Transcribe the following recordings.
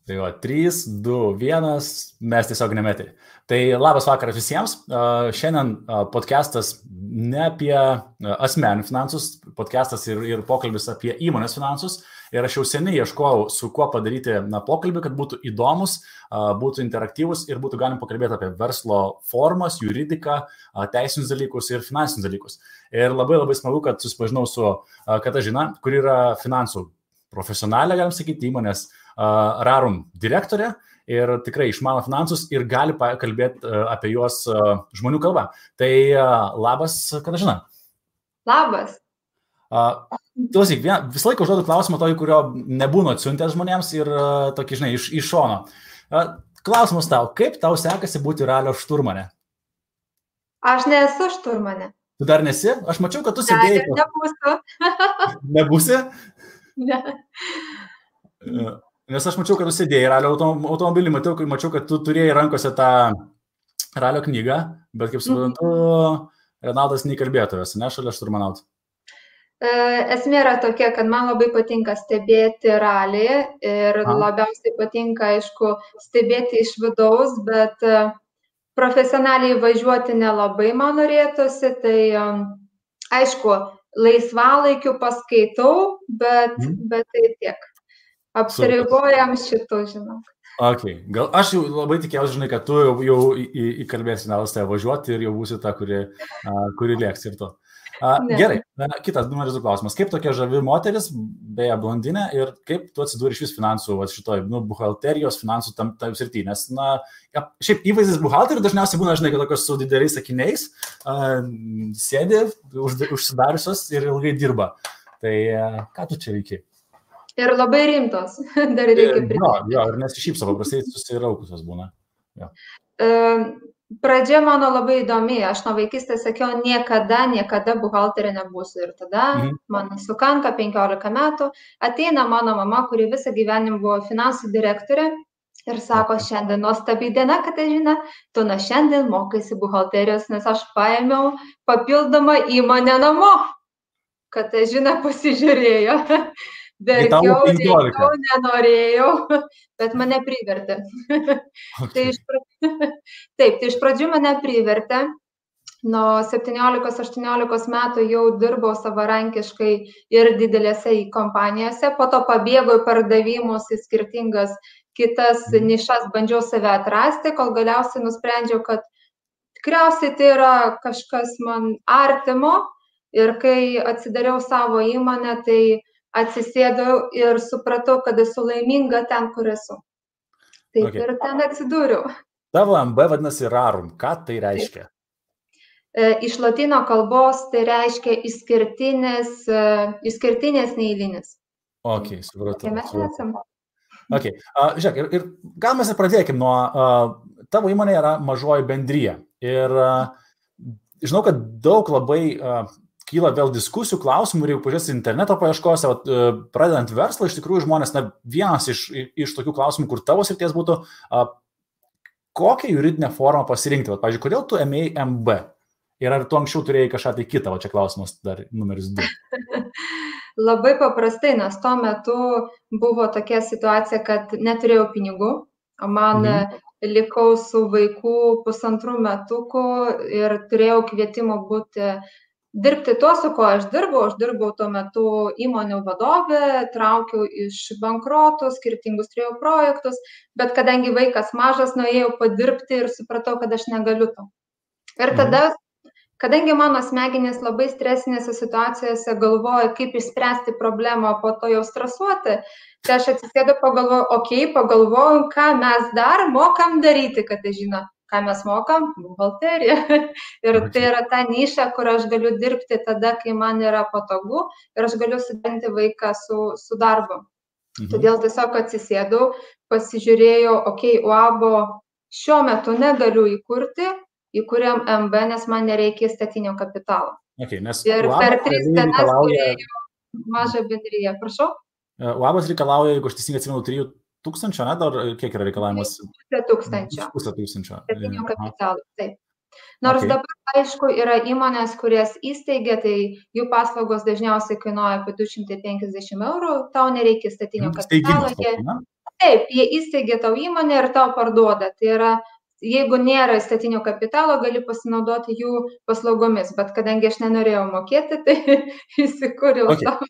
Tai va, 3, 2, 1, mes tiesiog nemetė. Tai labas vakaras visiems. Šiandien podcastas ne apie asmeninių finansus, podcastas ir pokalbis apie įmonės finansus. Ir aš jau seniai ieškojau, su kuo padaryti pokalbį, kad būtų įdomus, būtų interaktyvus ir būtų galim pakalbėti apie verslo formas, juridiką, teisinius dalykus ir finansinius dalykus. Ir labai smagu, kad susipažinau su Katažina, kur yra finansų profesionalė, galim sakyti, įmonės Rarum direktorė ir tikrai išmano finansus ir gali kalbėti apie juos žmonių kalbą. Tai labas, Katažina. Labas. Klausyk, visą laiką užduodu klausimą tokį, kurio nebūna atsiuntęs žmonėms ir tokį, žinai, iš šono. Klausimas tau, kaip tau sekasi būti ralio šturmane? Aš nesu šturmane. Tu dar nesi? Aš mačiau, kad tu sėdėjai. Ne, nebūsiu. Nebūsi? Ne. Nes aš mačiau, kad tu sėdėjai ralio automobilį, mačiau, kad tu turėjai rankose tą ralio knygą, bet kaip suprantu, Renaldas neįkalbėtojas, ne, šalia šturmanautų. Esmė yra tokia, kad man labai patinka stebėti ralį ir labiausiai patinka, aišku, stebėti iš vidaus, bet profesionaliai važiuoti nelabai man norėtųsi, tai aišku, laisvalaikiu paskaitau, bet tai tiek. Apsiribojam šitų, žinau. Okay. Gal aš jau labai tikėjausi, žinai, kad tu jau įkalbėsi Renalas tave važiuoti ir jau būsi ta, kuri lėks ir to. Gerai, kitas numeris 2 klausimas. Kaip tokia žavi moteris, beje, blondinė, ir kaip tu atsidūrė iš vis finansų, šitoj, buhalterijos, finansų tam srity, nes, šiaip įvaizdis buhalterių dažniausiai būna, žinai, kad tokios su dideliais sakiniais, sėdi, užsidariusios ir ilgai dirba. Tai ką tu čia veiki? Ir labai rimtos, dar reikia pridėti. Jo, ir nesišypso, paprastai susiraukusios būna. Jo. Pradžia mano labai įdomi, aš nuo vaikystės sakiau, niekada buhalterė nebūsiu. Ir tada man sukanka 15 metų, ateina mano mama, kuri visą gyvenimą buvo finansų direktorė ir sako, šiandien nuostabi diena, Katažina, tu nuo šiandien mokaisi buhalterijos, nes aš paėmiau papildomą įmonę namo. Katažina pasižiūrėjo. Verkiau, nenorėjau, bet mane privertė. Okay. Tai iš pradžių mane privertė. Nuo 17-18 metų jau dirbau savarankiškai ir didelėse kompanijose. Po to pabėgau į pardavimus į skirtingas kitas nišas, bandžiau save atrasti, kol galiausiai nusprendžiau, kad tikriausiai tai yra kažkas man artimo. Ir kai atsidariau savo įmonę, tai atsisėdau ir supratau, kad esu laiminga ten, kur esu. Taip ir ten atsidūriau. Tavo MB vadinasi Rarum. Ką tai reiškia? Iš lotynų kalbos tai reiškia išskirtinės neeilinis. Ok, supratau. Mes esame. Ok, žiūrėk, ir gal mes ir pradėkim nuo, tavo įmonė yra mažoji bendrija. Ir žinau, kad daug labai kyla vėl diskusijų, klausimų ir jeigu pažiūrėsi interneto paieškose, pradedant verslą, iš tikrųjų žmonės, vienas iš tokių klausimų, kur tavo srities būtų, kokią juridinę formą pasirinkti. Pavyzdžiui, kodėl tu ėmėjai MB? Ir ar tu anksčiau turėjai kažką tai kitą? Čia klausimas dar numeris 2. Labai paprastai, nes tuo metu buvo tokia situacija, kad neturėjau pinigų, man likau su vaiku 1,5 metukų ir turėjau kvietimą dirbti to, su ko aš dirbau tuo metu įmonių vadovė, traukiau iš bankrotų, skirtingus turėjau projektus, bet kadangi vaikas mažas, nuėjau padirbti ir supratau, kad aš negaliu to. Ir tada, kadangi mano smegenys labai stresinėse situacijose galvoja, kaip išspręsti problemą, po to jau stresuoti, tai aš atsisėdu, pagalvoju, ką mes dar mokam daryti, kad žino. Ką mes mokam? Buhalteriją. Ir tai yra ta niša, kur aš galiu dirbti tada, kai man yra patogu ir aš galiu suderinti vaiką su darbu. Todėl tiesiog atsisėdau, pasižiūrėjau, UABO šiuo metu negaliu įkurti, įkūrėm MB, nes man nereikia statinio kapitalo. Ir per 3 dienas turėjau mažą bendriją. Prašau? UABas reikalauja, jeigu aš teisingai atsimenu, 3,000, ne? Dar kiek yra reikalavimas? 5,000. 5,000. Statinio kapitalo, taip. Nors dabar, aišku, yra įmonės, kurias įsteigia, tai jų paslaugos dažniausiai kainuoja apie 250 €, tau nereikia statinio kapitalo. Taip, jie įsteigė tau įmonę ir tau parduoda. Tai yra, jeigu nėra įstatinio kapitalo, gali pasinaudoti jų paslaugomis, bet kadangi aš nenorėjau mokėti, tai įsikūriau savo.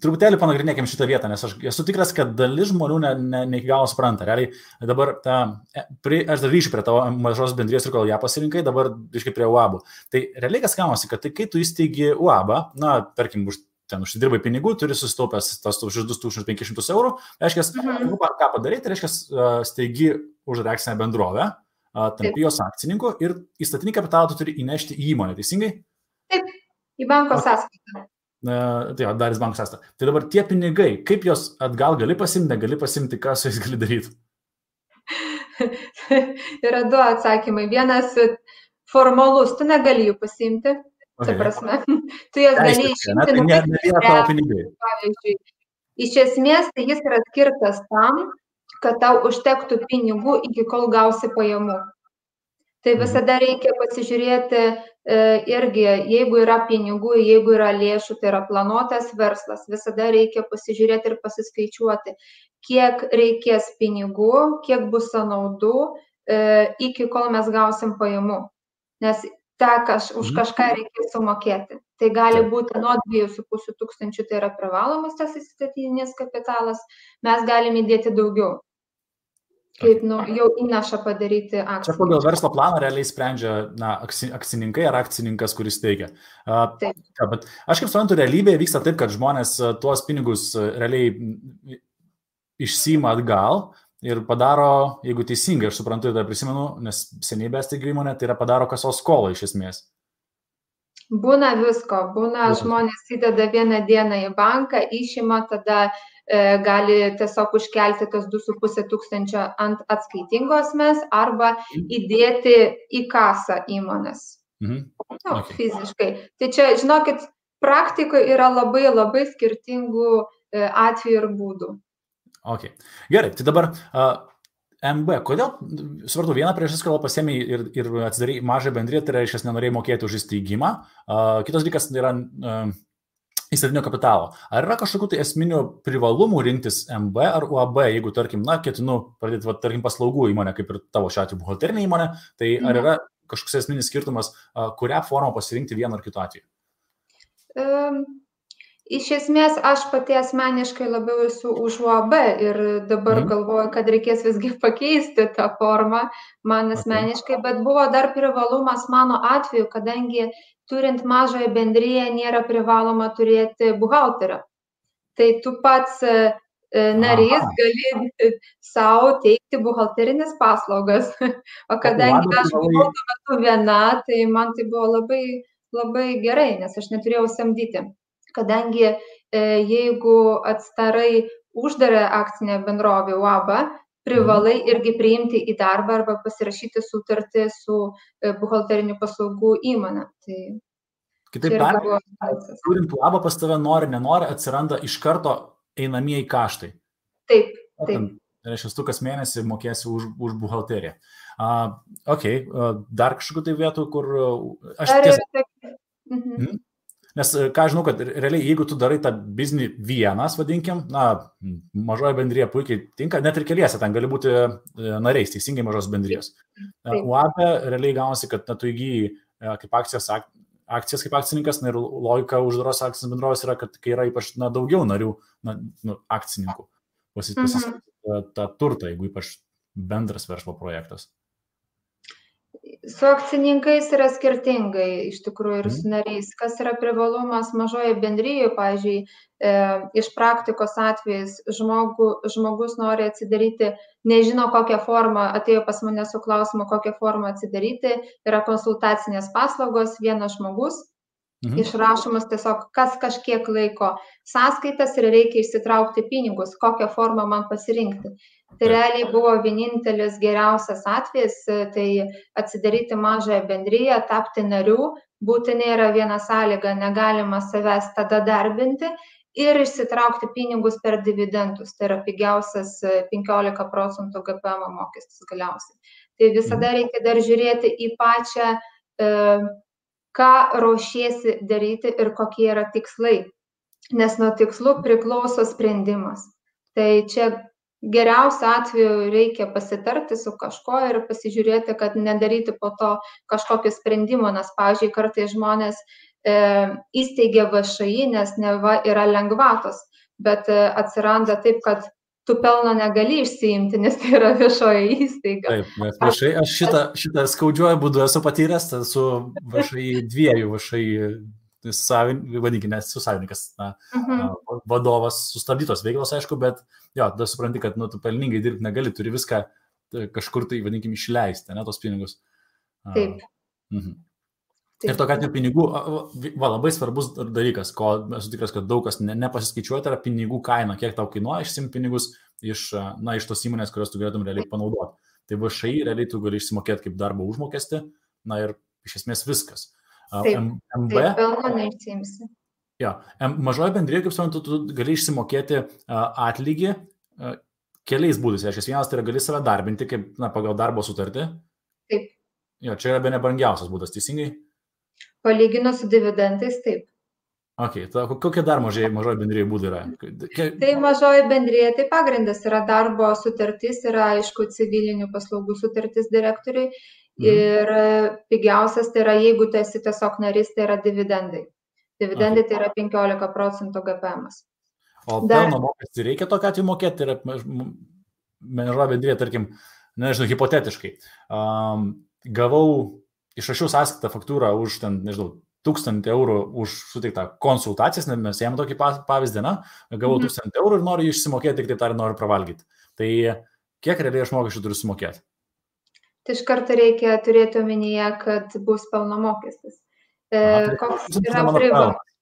Truputėlį panagrinėkim šitą vietą, nes aš esu tikras, kad dalis žmonių ne iki galo supranta. Realiai dabar aš dar grįšiu prie tavo mažos bendrijos ir kol ją pasirinkai, dabar grįžkai prie UAB. Tai realiai kas gaunasi, kad tai kai tu įsteigi UAB, na, tarkim, ten užsidirbai pinigų, turi susitaupęs tos už 2500 eurų, reiškia, ką padaryti, reiškia, steigi uždarą akcinę bendrovę, tampi jos akcininku ir įstatinį kapitalą tu turi įnešti į įmonę, teisingai? Taip, į banko sąskaitą. Tai dar į banko sąskaitą. Tai dabar tie pinigai, kaip jos atgal gali pasimti, negali pasimti, ką su jais gali daryti? Yra du atsakymai. Vienas formalus, tu negali jų pasimti. Tai prasme, tu jas gali išimti, pavyzdžiui. Iš esmės, tai jis yra skirtas tam, kad tau užtektų pinigų iki kol gausi pajamų. Tai visada reikia pasižiūrėti irgi, jeigu yra pinigų, jeigu yra lėšų, tai yra planuotas verslas, visada reikia pasižiūrėti ir pasiskaičiuoti, kiek reikės pinigų, kiek bus sąnaudų, iki kol mes gausim pajamų. Nes už kažką reikės sumokėti. Tai gali būti nuo 2,5 tūkstančių, tai yra privalomas tas įstatinis kapitalas, mes galime įdėti daugiau, kaip jau įnašą padaryti akciją. Čia pagal verslo planą realiai sprendžia akcininkai ar akcininkas, kuris teikia. Bet aš kaip suprantu, realybėje vyksta taip, kad žmonės tuos pinigus realiai išsiima atgal, ir padaro, jeigu teisingai, aš suprantu, tai prisimenu, nes seniai besteigiu įmonę, tai yra padaro kasos skolą iš esmės. Būna visko, žmonės įdeda vieną dieną į banką, išima, tada gali tiesiog užkelti tos 2,5 tūkstančio ant atskaitingo asmens arba įdėti į kasą įmonės. Fiziškai. Tai čia, žinokit, praktikoje yra labai, labai skirtingų atvejų ir būdų. Okay. Gerai, tai dabar MB, kodėl, supratau, vieną priežastis, kodėl pasiėmė ir atsidarai mažą bendriją, tai reiškia, nenorėjai mokėti už įsteigimą. Kitas dalykas yra įstatinio kapitalo. Ar yra kažkokių tai esminių privalumų rinktis MB ar UAB, jeigu, tarkim, ketinu pradėti, tarkim, paslaugų įmonę, kaip ir tavo šiuo atveju buhalterinė įmonė, tai ar yra kažkoks esminis skirtumas, kurią formą pasirinkti vienu ar kitu atveju? Iš esmės, aš pati asmeniškai labiau esu už UAB ir dabar galvoju, kad reikės visgi pakeisti tą formą man asmeniškai, bet buvo dar privalumas mano atveju, kadangi turint mažąją bendriją nėra privaloma turėti buhalterio. Tai tu pats narys gali savo teikti buhalterinės paslaugas, o kadangi aš buvau tuo metu viena, tai man tai buvo labai, labai gerai, nes aš neturėjau samdyti. Kadangi jeigu atstarai uždarą akcinę bendrovę UAB, privalai irgi priimti į darbą arba pasirašyti sutartį su buhalterinių paslaugų įmonė. Kitaip tariant, turint UAB pas tave nori, nenori, atsiranda iš karto einamieji kaštai. Taip. Tai reiškia, tu kas mėnesį mokėsi už buhalteriją. Dar kažkokių tai vietų, kur Nes ką žinau, kad realiai, jeigu tu darai tą biznį vienas, vadinkim, mažoji bendrija puikiai tinka, net ir keliese, ten gali būti nariais, teisingai mažos bendrijos. UAB realiai gaunasi, kad tu įgyji kaip akcijas kaip akcininkas, ir logika uždaros akcinės bendrovės yra, kad kai yra ypač daugiau narių, akcininkų, pasisakyti tą turtą, jeigu ypač bendras verslo projektas. Su akcininkais yra skirtingai, iš tikrųjų, ir su nariais. Kas yra privalumas mažoje bendrijoje, pavyzdžiui, iš praktikos atvejais žmogus nori atsidaryti, nežino kokią formą, atėjo pas mane su klausimu, kokią formą atsidaryti, yra konsultacinės paslaugos, vienas žmogus, išrašomas tiesiog kas kažkiek laiko sąskaitas ir reikia išsitraukti pinigus, kokią formą man pasirinkti. Tai realiai buvo vienintelis geriausias atvejis, tai atsidaryti mažąją bendriją, tapti nariu, būtinai yra viena sąlyga, negalima savęs tada darbinti ir išsitraukti pinigus per dividendus, tai yra pigiausias 15% GPM mokestis galiausiai. Tai visada reikia dar žiūrėti į pačią, ką ruošiesi daryti ir kokie yra tikslai, nes nuo tikslų priklauso sprendimas. Tai čia geriausiu atveju reikia pasitarti su kažko ir pasižiūrėti, kad nedaryti po to kažkokio sprendimo, nes, pavyzdžiui, kartais žmonės įsteigia VŠI, nes neva yra lengvatos, bet atsiranda taip, kad tu pelno negali išsiimti, nes tai yra viešoji įstaiga. Taip, nes VŠI, aš šitą skaudžiuoju būdu esu patyręs, su VŠI dviejų VŠI vadinkime, su savininkas, vadovas sustabdytos veiklos, aišku, bet jo, tada supranti, kad tu pelningai dirbti negali, turi viską kažkur tai, vadinkime, išleisti, ne, tos pinigus. Taip. Ir tokia atveju pinigų, labai svarbus dalykas, ko esu tikras, kad daug kas nepasiskaičiuoja, tai yra pinigų kaina, kiek tau kainuoja išsimti pinigus iš tos įmonės, kurios tu galėtum realiai panaudoti. Tai VŠI realiai tu gali išsimokėti kaip darbo užmokestį, ir iš esmės viskas. MB, pelno neišsiimsi. Jo, mažoji bendrija, kaip suprantu, tu gali išsimokėti atlygį keliais būdais. Vienas tai yra gali save darbinti kaip pagal darbo sutartį. Taip. Jo, čia yra bene brangiausias būdas, teisingai? Palyginus su dividendais, taip. Ok, kokie dar mažoji bendrija būdai yra? Tai mažoji bendrija, tai pagrindas yra darbo sutartis, yra aišku civilinių paslaugų sutartis direktoriui ir pigiausias tai yra, jeigu tu esi tiesiog narys, tai yra dividendai. Dividendai tai yra 15% GPM. O pelno mokestį reikia tokiu atveju mokėti? Tai yra mažoji bendrija, tarkim, nežinau, hipotetiškai. Gavau išrašiau sąskaitą faktūrą už, 1000 eurų už suteiktą konsultacijas, nes mes ėmėm tokį pavyzdį, gavau 1000 eurų ir noriu išsimokėti, tik taip tariant, noriu pravalgyti. Tai kiek realiai aš mokesčių turiu sumokėti? Tai iš karto reikia turėti omenyje, kad bus pelno mokestis. Koks yra privalumas?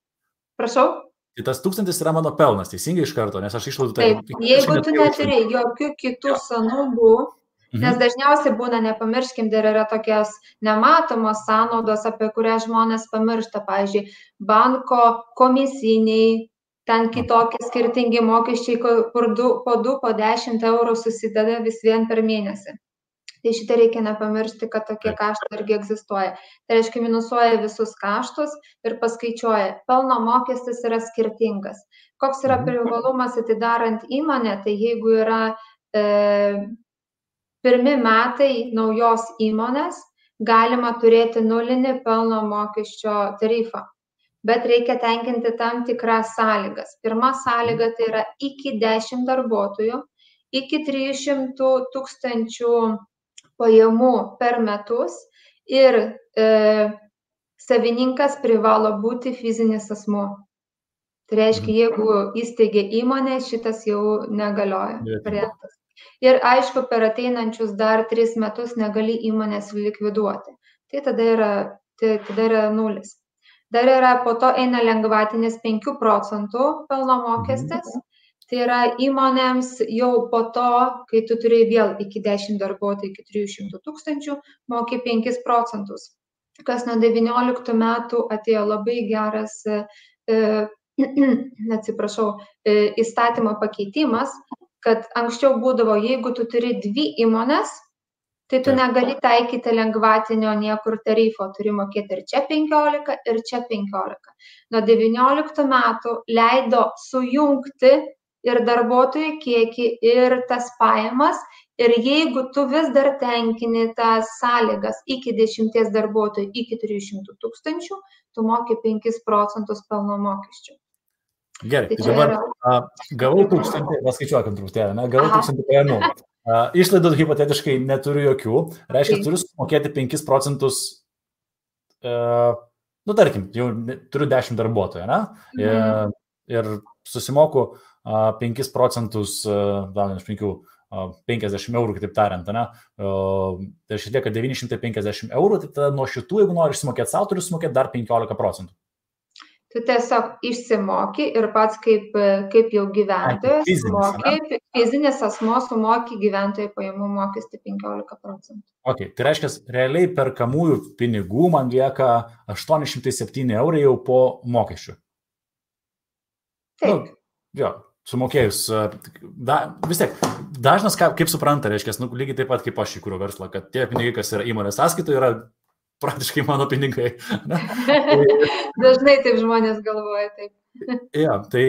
Prašau? Tai tas 1000 yra mano pelnas, teisingai iš karto, nes aš išlaidų tai... Taip, jeigu tu neturi jokių kitų sąnaudų, nes dažniausiai būna, nepamirškim, dar yra tokios nematomos sąnaudos, apie kurias žmonės pamiršta, pavyzdžiui, banko komisiniai, ten kitokie skirtingi mokesčiai, po 10 eurų susideda vis vien per mėnesį. Tai šitą reikia nepamiršti, kad tokie kaštai irgi egzistuoja. Tai reiškia, minusuoja visus kaštus ir paskaičiuoja. Pelno mokestis yra skirtingas. Koks yra privalumas atidarant įmonę, tai jeigu yra pirmi metai naujos įmonės, galima turėti nulinį pelno mokesčio tarifą. Bet reikia tenkinti tam tikras sąlygas. Pirma sąlyga tai yra iki 10 darbuotojų, iki 300 000 pajamų per metus ir savininkas privalo būti fizinis asmuo. Tai reiškia, jeigu įsteigia įmonę, šitas jau negalioja variantas. Ir aišku, per ateinančius dar 3 metus negali įmonės likviduoti. Tai tada yra nulis. Dar yra, po to eina lengvatinis 5% pelno mokestis. Tai yra įmonėms jau po to, kai tu turi vėl iki 10 darbuotojų, iki 300 000, moki 5%. Kas nuo 19 metų atėjo labai geras, įstatymo pakeitimas, kad anksčiau būdavo, jeigu tu turi 2 įmonės, tai tu negali taikyti lengvatinio niekur tarifo, turi mokėti ir čia 15, ir čia 15. Nuo 19 metų leido sujungti ir darbuotojų kiekį, ir tas pajamas, ir jeigu tu vis dar tenkini tas sąlygas iki 10 darbuotojų, iki 300 000, tu moki 5% pelno mokesčių. Gerai, tai dabar gavau 1000, paskaičiuokim truputėlį, gavau 1000 pajamų. Išlaidų hipotetiškai neturiu jokių, reiškia, turiu sumokėti 5%, tarkim, jau turiu 10 darbuotojų, ir susimoku 5%, 50 eurų, kitaip tariant, tai išlieka 950 eurų, tai tada nuo šitų, jeigu nori išsimokėti savo, turiu sumokėti dar 15%. Tu tiesiog išsimoki ir pats kaip jau gyventojas moki, fizinis asmuo sumoki gyventojų pajamų mokestį 15%. Ok, tai reiškia, realiai perkamųjų pinigų man lieka 807 eurai jau po mokesčių. Taip. Jo, sumokėjus, vis tiek, dažnas, kaip supranta, reiškia, lygiai taip pat kaip aš įkūriau verslą, kad tie pinigai, kas yra įmonės sąskaitoje, yra praktiškai mano pinigai. Dažnai taip žmonės galvoja, taip. Ja, tai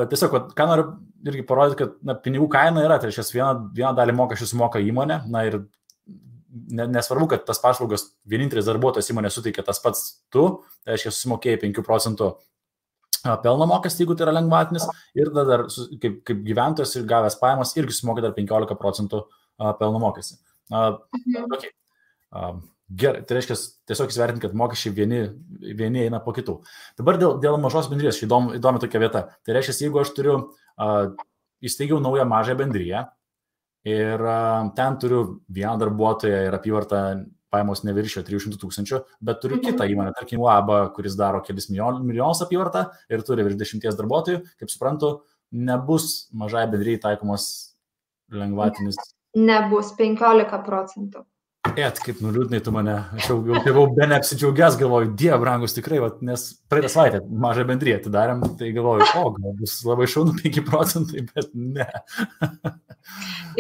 tiesiog, ką noriu irgi parodyti, kad pinigų kaina yra, tai reiškia, vieną dalį mokesčių sumoka įmonė, ir nesvarbu, kad tas paslaugas vienintelis darbuotojas įmonė suteikia tas pats tu, tai reiškia, susimokėjai 5 procentų pelno mokestį, jeigu tai yra lengvatinis, ir dar kaip gyventojas ir gavęs pajamas irgi sumoka dar 15 procentų pelno mokestį. Okay. Gerai, tai reiškia, tiesiog įsivertinti, kad mokesčiai vieni eina po kitų. Dabar dėl mažos bendrijos, įdomi tokia vieta. Tai reiškia, jeigu aš įsteigiau naują mažą bendriją ir ten turiu vieną darbuotoją ir apyvartą pajamos neviršio 300 000, bet turiu kitą įmonę, tarkim, UAB, kuris daro kelis milijonus apyvartą ir turi virš 10 darbuotojų, kaip suprantu, nebus mažai bendrijai taikomos lengvatinis. Nebus 15 procentų. Kaip nuliūdnai tu mane, aš jau buvau be neapsidžiaugęs, galvoju, Dieve brangus tikrai, nes praeitą savaitę mažą bendriją atidarėm, tai galvoju, gal bus labai šaunu 5 procentai, bet ne.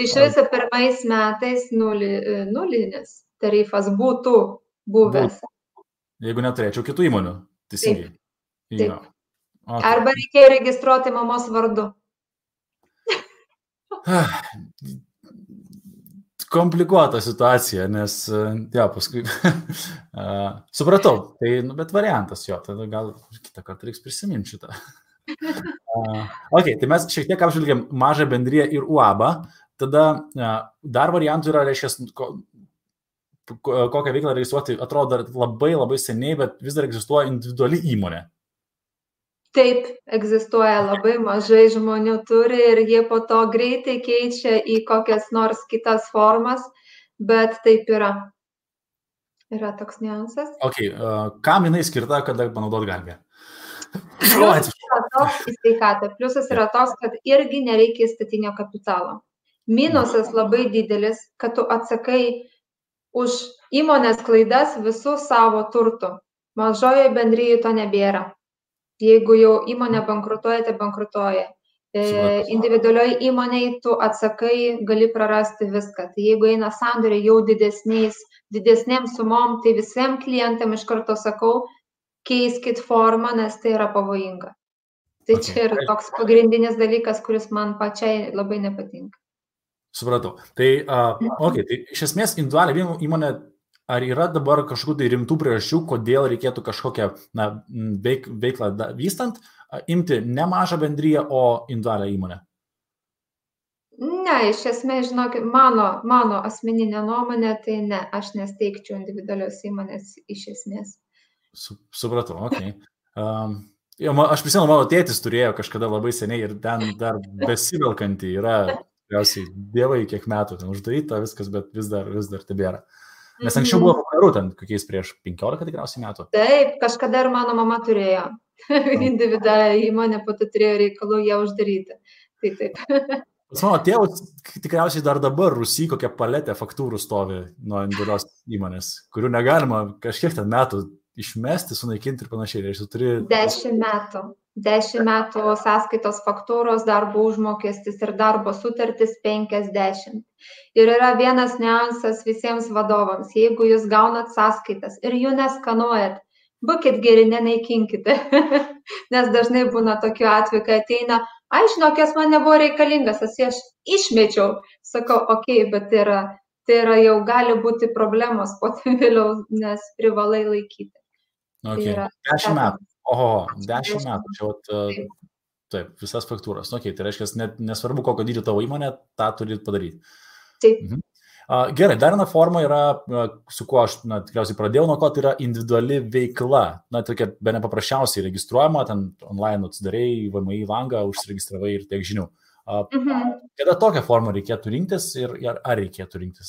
Iš viso pirmais metais nulinis tarifas būtų buvęs. Jeigu neturėčiau kitų įmonių, teisingai. Taip. Okay. Arba reikėjo registruoti mamos vardu. Komplikuota situacija, nes, paskui supratau, tai, bet variantas jo, tada gal kitą kartą reiks prisiminti šitą. Tai mes šiek tiek apžvelgėm mažą bendriją ir UAB, tada dar variantų yra, reiškia, kokią veiklą registruoti, atrodo dar labai labai seniai, bet vis dar egzistuoja individuali įmonė. Taip, egzistuoja, labai mažai žmonių turi ir jie po to greitai keičia į kokias nors kitas formas, bet taip yra. Yra toks niuansas. Kam jinai skirta, kada panaudot galime? Pliusas yra toks į sveikatą. Pliusas yra toks, kad irgi nereikia įstatinio kapitalo. Minusas labai didelis, kad tu atsakai už įmonės klaidas visų savo turtų. Mažoje bendryje to nebėra. Jeigu jau įmonė bankrutuoja, tai bankrutuoja. Individualioj įmonėj tu atsakai, gali prarasti viską. Tai jeigu eina sandoriai jau didesnėm sumom, tai visiems klientam iš karto sakau, keiskit formą, nes tai yra pavojinga. Tai čia yra toks pagrindinis dalykas, kuris man pačiai labai nepatinka. Supratau. Tai iš esmės individualią įmonę, ar yra dabar kažkokių tai rimtų priežasčių, kodėl reikėtų kažkokią veiklą vystant, imti ne mažą bendriją, o individualią įmonę? Ne, iš esmės, žinokit, mano asmeninė nuomonė, tai ne, aš nesteigčiau individualios įmonės iš esmės. Supratau, aš prisimenu, mano tėtis turėjo kažkada labai seniai ir ten dar besivelkanti yra, tikriausiai, dievai kiek metų ten uždaryta viskas, bet vis dar tebėra. Nes anksčiau buvo populiaru ten, kokiais prieš 15 tikriausiai metų. Taip, kažkada ir mano mama turėjo individualią įmonę, po to turėjo reikalų ją uždaryti. Tai taip. Pas mano tėvus tikriausiai dar dabar Rusy kokia paletė faktūrų stovi nuo individualios įmonės, kurių negalima kažkiek ten metų išmesti, sunaikinti ir panašiai. 10 metų. 10 metų sąskaitos faktūros, darbo užmokestis ir darbo sutartis 50. Ir yra vienas niuansas visiems vadovams. Jeigu jūs gaunat sąskaitas ir jų neskanuojat, būkit geri, nenaikinkite. Nes dažnai būna tokių atvejų, kai ateina, žinokės, man nebuvo reikalingas, aš išmečiau. Sakau, bet tai yra jau gali būti problemos po tai vėliau, nes privalai laikyti. 10 metų. 10 metų. Čia taip, visas faktūras. Tai reiškia, nesvarbu, kokio dydžio tavo įmonė, tą turi padaryti. Taip. Gerai, dar viena forma yra, su kuo aš tikriausiai pradėjau, nuo ko tai yra individuali veikla. Tokia be nepaprasčiausiai registruojama, ten online atsidarėjai VMI langą, užsiregistravai ir tiek žinių. Kada tokią formą reikėtų rinktis ir ar reikėtų rinktis?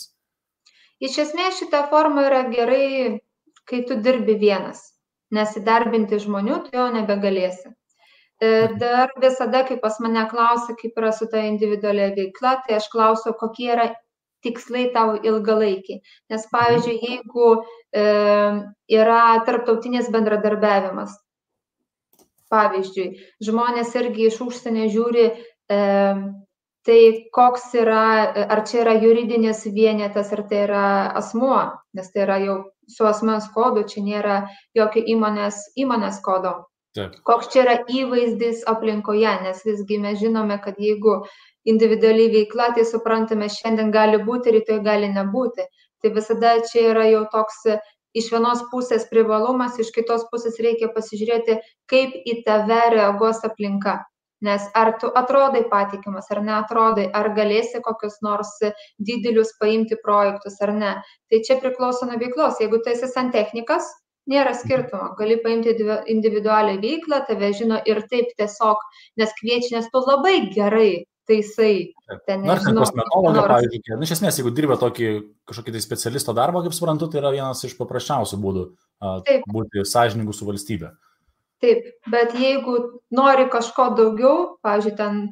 Iš esmės šita forma yra gerai, kai tu dirbi vienas. Nes įdarbinti žmonių tu jau nebegalėsi. Dar visada, kai pas mane klausia, kaip yra su ta individualia veikla, tai aš klausiu, kokie yra tikslai tavo ilgalaikiai. Nes, pavyzdžiui, jeigu yra tarptautinis bendradarbiavimas, pavyzdžiui, žmonės irgi iš užsienio žiūri, tai koks yra, ar čia yra juridinis vienetas, ar tai yra asmuo, nes tai yra jau su asmens kodu, čia nėra jokio įmonės kodo. Taip. Koks čia yra įvaizdis aplinkoje, nes visgi mes žinome, kad jeigu individualiai veikla, tai suprantame, šiandien gali būti, rytoj gali nebūti. Tai visada čia yra jau toks iš vienos pusės privalumas, iš kitos pusės reikia pasižiūrėti, kaip į tave reaguos aplinka. Nes ar tu atrodai patikimas, ar neatrodai, ar galėsi kokius nors didelius paimti projektus, ar ne. Tai čia priklauso nuo veiklos. Jeigu tu esi santechnikas, nėra skirtumo. Gali paimti individualią veiklą, tave žino ir taip tiesiog, nes kviečia, nes tu labai gerai taisai. Nors kosmetologą, pavyzdžiui, iš esmės, jeigu dirba kažkokį tai specialisto darbą, kaip suprantu, tai yra vienas iš paprasčiausių būdų būti sąžiningu su valstybe. Taip, bet jeigu nori kažko daugiau, pavyzdžiui, ten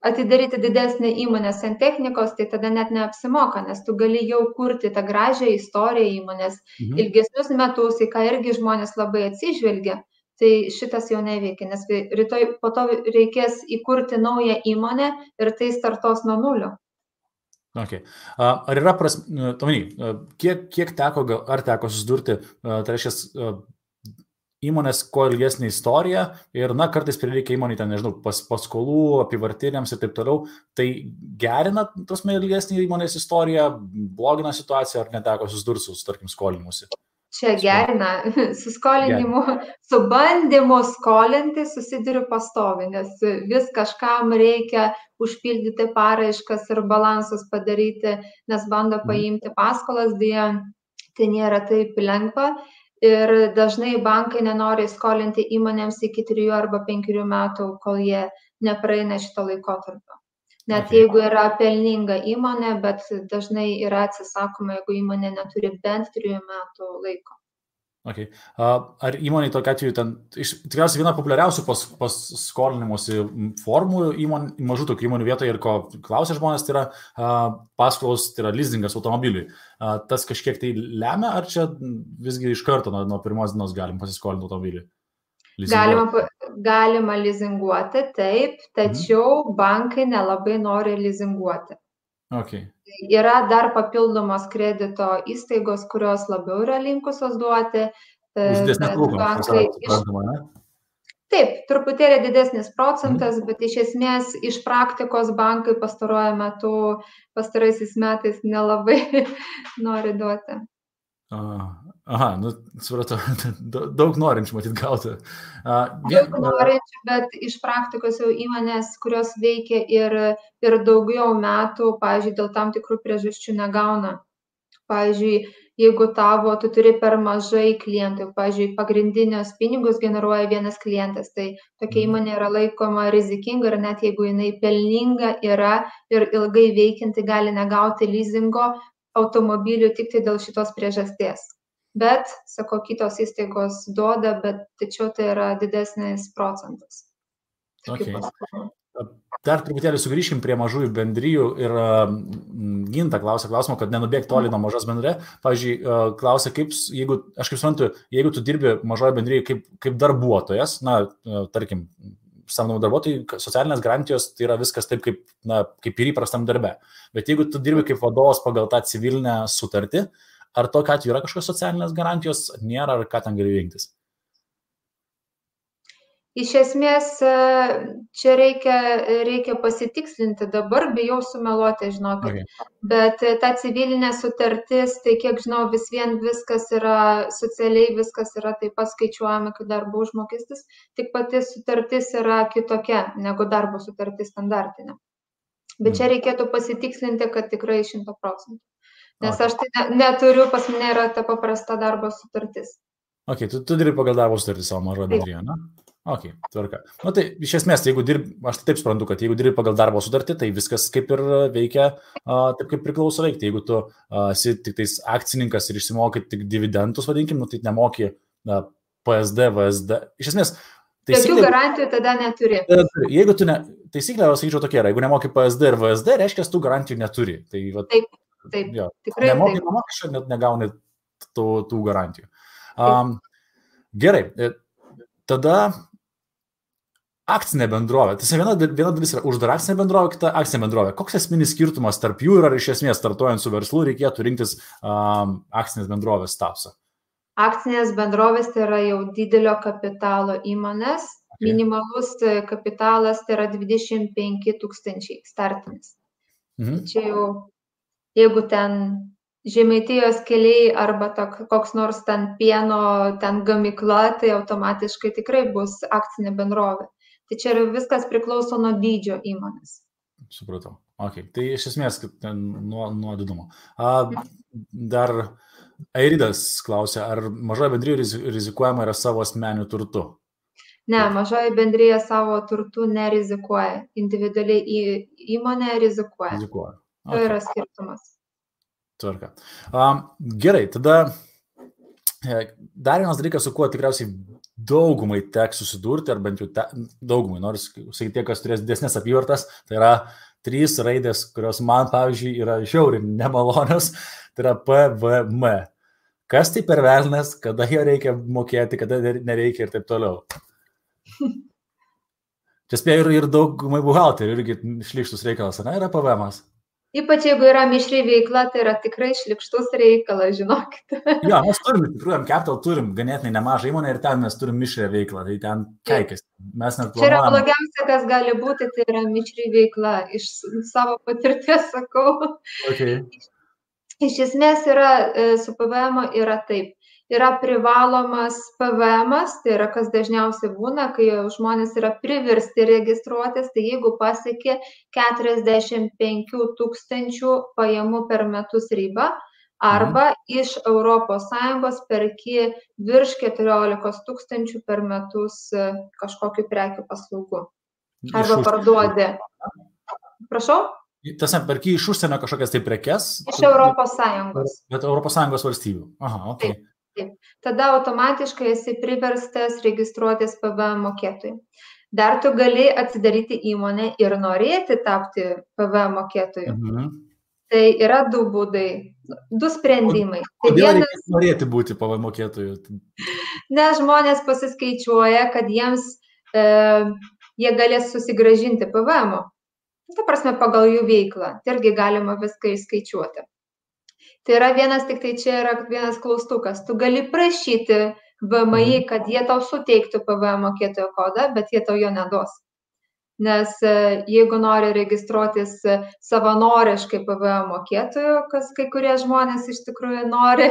atidaryti didesnę įmonę santechnikos, tai tada net neapsimoka, nes tu gali jau kurti tą gražią istoriją įmonės ilgesnius metus, į ką irgi žmonės labai atsižvelgia. Tai šitas jau neveikia, nes rytoj po to reikės įkurti naują įmonę ir tai startos nuo nulio. Okay. Ar yra kiek teko, ar teko susidurti, tai reiškia, įmonės kuo ilgesnė istorija ir, kartais prireikia įmonį ten, nežinau, paskolų, apivartiniams ir taip toliau, tai gerina ilgesnį įmonės istoriją, blogina situaciją, ar neteko susidurti su, tarkim, skolinimusi? Čia gerina, su skolinimu, su bandymu skolinti susiduriu pastovi, nes vis kažkam reikia užpildyti paraiškas ir balansus padaryti, nes bando paimti paskolas, dėja, tai nėra taip lengva. Ir dažnai bankai nenori skolinti įmonėms iki 3 arba 5 metų, kol jie nepraeina šito laikotarpio. Net jeigu yra pelninga įmonė, bet dažnai yra atsisakoma, jeigu įmonė neturi bent 3 metų laiko. Okay. Ar įmonė tokia atveju, tikriausiai viena populiariausių paskolinimuose formų mažų tokių įmonių vietoje ir ko klausia žmonės, tai yra paskolos, tai yra leasingas automobiliui. Tas kažkiek tai lemia, ar čia visgi iš karto nuo pirmos dienos galim pasiskolinti automobilį? Galima lizinguoti, taip, tačiau bankai nelabai nori lizinguoti. Okay. Yra dar papildomos kredito įstaigos, kurios labiau yra linkusios duoti. Už didesnės palūkanos. Taip, truputėlį didesnis procentas, bet iš esmės iš praktikos bankai pastaraisiais metais nelabai nori duoti. Aha, supratau, daug norinčių matyt gauti. Daug norinčių, bet iš praktikos jau įmonės, kurios veikia ir daugiau metų, pavyzdžiui, dėl tam tikrų priežasčių negauna. Pavyzdžiui, jeigu tu turi per mažai klientų, pavyzdžiui, pagrindinius pinigus generuoja vienas klientas, tai tokia įmonė yra laikoma rizikinga ir net jeigu jinai pelninga yra ir ilgai veikianti, gali negauti leasingo automobilių tik tai dėl šitos priežasties. Bet, sako, kitos įstaigos duoda, bet tačiau tai yra didesnis procentas. Okay. Dar truputėlį sugrįžkim prie mažųjų bendrijų ir Ginta klausia klausimą, kad nenubėg toli nuo mažos bendrė. Pavyzdžiui, klausia, aš kaip suprantu, jeigu tu dirbi mažoje bendryje kaip darbuotojas, tarkim, samdomų darbuotojų, socialinės garantijos tai yra viskas taip, kaip ir įprastam darbe. Bet jeigu tu dirbi kaip vadovas pagal tą civilinę sutartį, ar tokia atveju yra kažkokios socialinės garantijos, nėra, ar ką ten gali rinktis? Iš esmės, čia reikia pasitikslinti, dabar bijau sumeluoti, žinokit. Bet ta civilinė sutartis, tai kiek žinau, vis vien viskas yra, socialiai viskas yra taip pat skaičiuojama, kaip darbo užmokestis, tik pati sutartis yra kitokia negu darbo sutartis standartinė. Bet čia reikėtų pasitikslinti, kad tikrai 100%. Nes aš tai neturiu, pas mane yra ta paprasta darbo sutartis. Ok, tu dirbi pagal darbo sutartį savo mažoje bendrijoje, ne? Ok, tvarka. Tai iš esmės, jeigu dirbi, aš taip suprantu, kad jeigu dirbi pagal darbo sutartį, tai viskas kaip ir veikia taip, kaip priklauso veikti. Jeigu tu esi tik tais akcininkas ir išsimokai tik dividendus, vadinkim, tai nemoki PSD, VSD. Iš esmės, tokių garantijų tada neturi. Jeigu tu taisyklė, aš sakyčiau tokia, jeigu nemoki PSD ir VSD, reiškia, tu garantijų neturi. Tai, taip, tikrai nemoki mokesčio, net negauni tų garantijų. Gerai, tada akcinė bendrovė. Tai viena dalis yra uždara akcinė bendrovė, kita akcinė bendrovė. Koks esminis skirtumas tarp jų ir ar iš esmės startuojant su verslu reikėtų rinktis akcinės bendrovės statusą? Akcinės bendrovės tai yra jau didelio kapitalo įmonės, minimalus kapitalas tai yra 25 000 startinis. Čia jau, jeigu ten Žemaitijos keliai arba koks nors ten pieno ten gamykla, tai automatiškai tikrai bus akcinė bendrovė. Tai čia viskas priklauso nuo dydžio įmonės. Supratau. Okay. Tai iš esmės nuo didumo. Dar Airidas klausia, ar mažoji bendrija rizikuojama yra savo asmeniu turtu? Ne, mažoji bendrija savo turtu nerizikuoja. Individualiai įmonė rizikuoja. Rizikuoja. Okay. Tai yra skirtumas. Tvarka. Gerai, tada dar vienas dalykas, su kuo tikriausiai daugumai teks susidurti, ar bent jau daugumai, noriu sakyti, tie, kas turės didesnės apyvartas, tai yra 3 raidės, kurios man, pavyzdžiui, yra žiauriai nemalonios, tai yra PVM. Kas tai per velnas, kada jo reikia mokėti, kada nereikia ir taip toliau. Čia spėjo ir daugumai buhalterių, irgi šlykštus reikalas, ne, yra PVM-as. Ypač jeigu yra mišri veikla, tai yra tikrai šlykštus reikalas, žinokit. Jo, mes turim, tikrai, Capital turim ganėtinai nemažą įmonę ir ten mes turim mišrę veiklą, tai ten keikės. Čia yra blogiausia, kas gali būti, tai yra mišri veikla, iš savo patirties sakau. Okay. Iš esmės yra, su PVM yra taip. Yra privalomas PVM-as, tai yra kas dažniausiai būna, kai žmonės yra priversti registruotis, tai jeigu pasiekė 45 000 pajamų per metus ribą, arba iš ES perki virš 14 000 per metus kažkokių prekių paslaugų. Arba parduodi. Prašau? Tiesa, perki iš užsienio kažkokias tai prekes? Iš ES. Bet ES valstybių. Aha, ok. Taip. Tada automatiškai esi priverstas registruotis PVM mokėtojui. Dar tu gali atsidaryti įmonę ir norėti tapti PVM mokėtoju. Tai yra 2 būdai, 2 sprendimai. Kodėl reikia norėti būti PVM mokėtoju? Nes žmonės pasiskaičiuoja, kad jiems jie galės susigrąžinti PVM-o. Ta prasme, pagal jų veiklą. Tai irgi galima viską įskaičiuoti. Tai yra tik tai čia yra vienas klaustukas. Tu gali prašyti VMI, kad jie tau suteiktų PVM mokėtojo kodą, bet jie tau jo neduos. Nes jeigu nori registruotis savanoriškai PVM mokėtojo, kas kai kurie žmonės iš tikrųjų nori,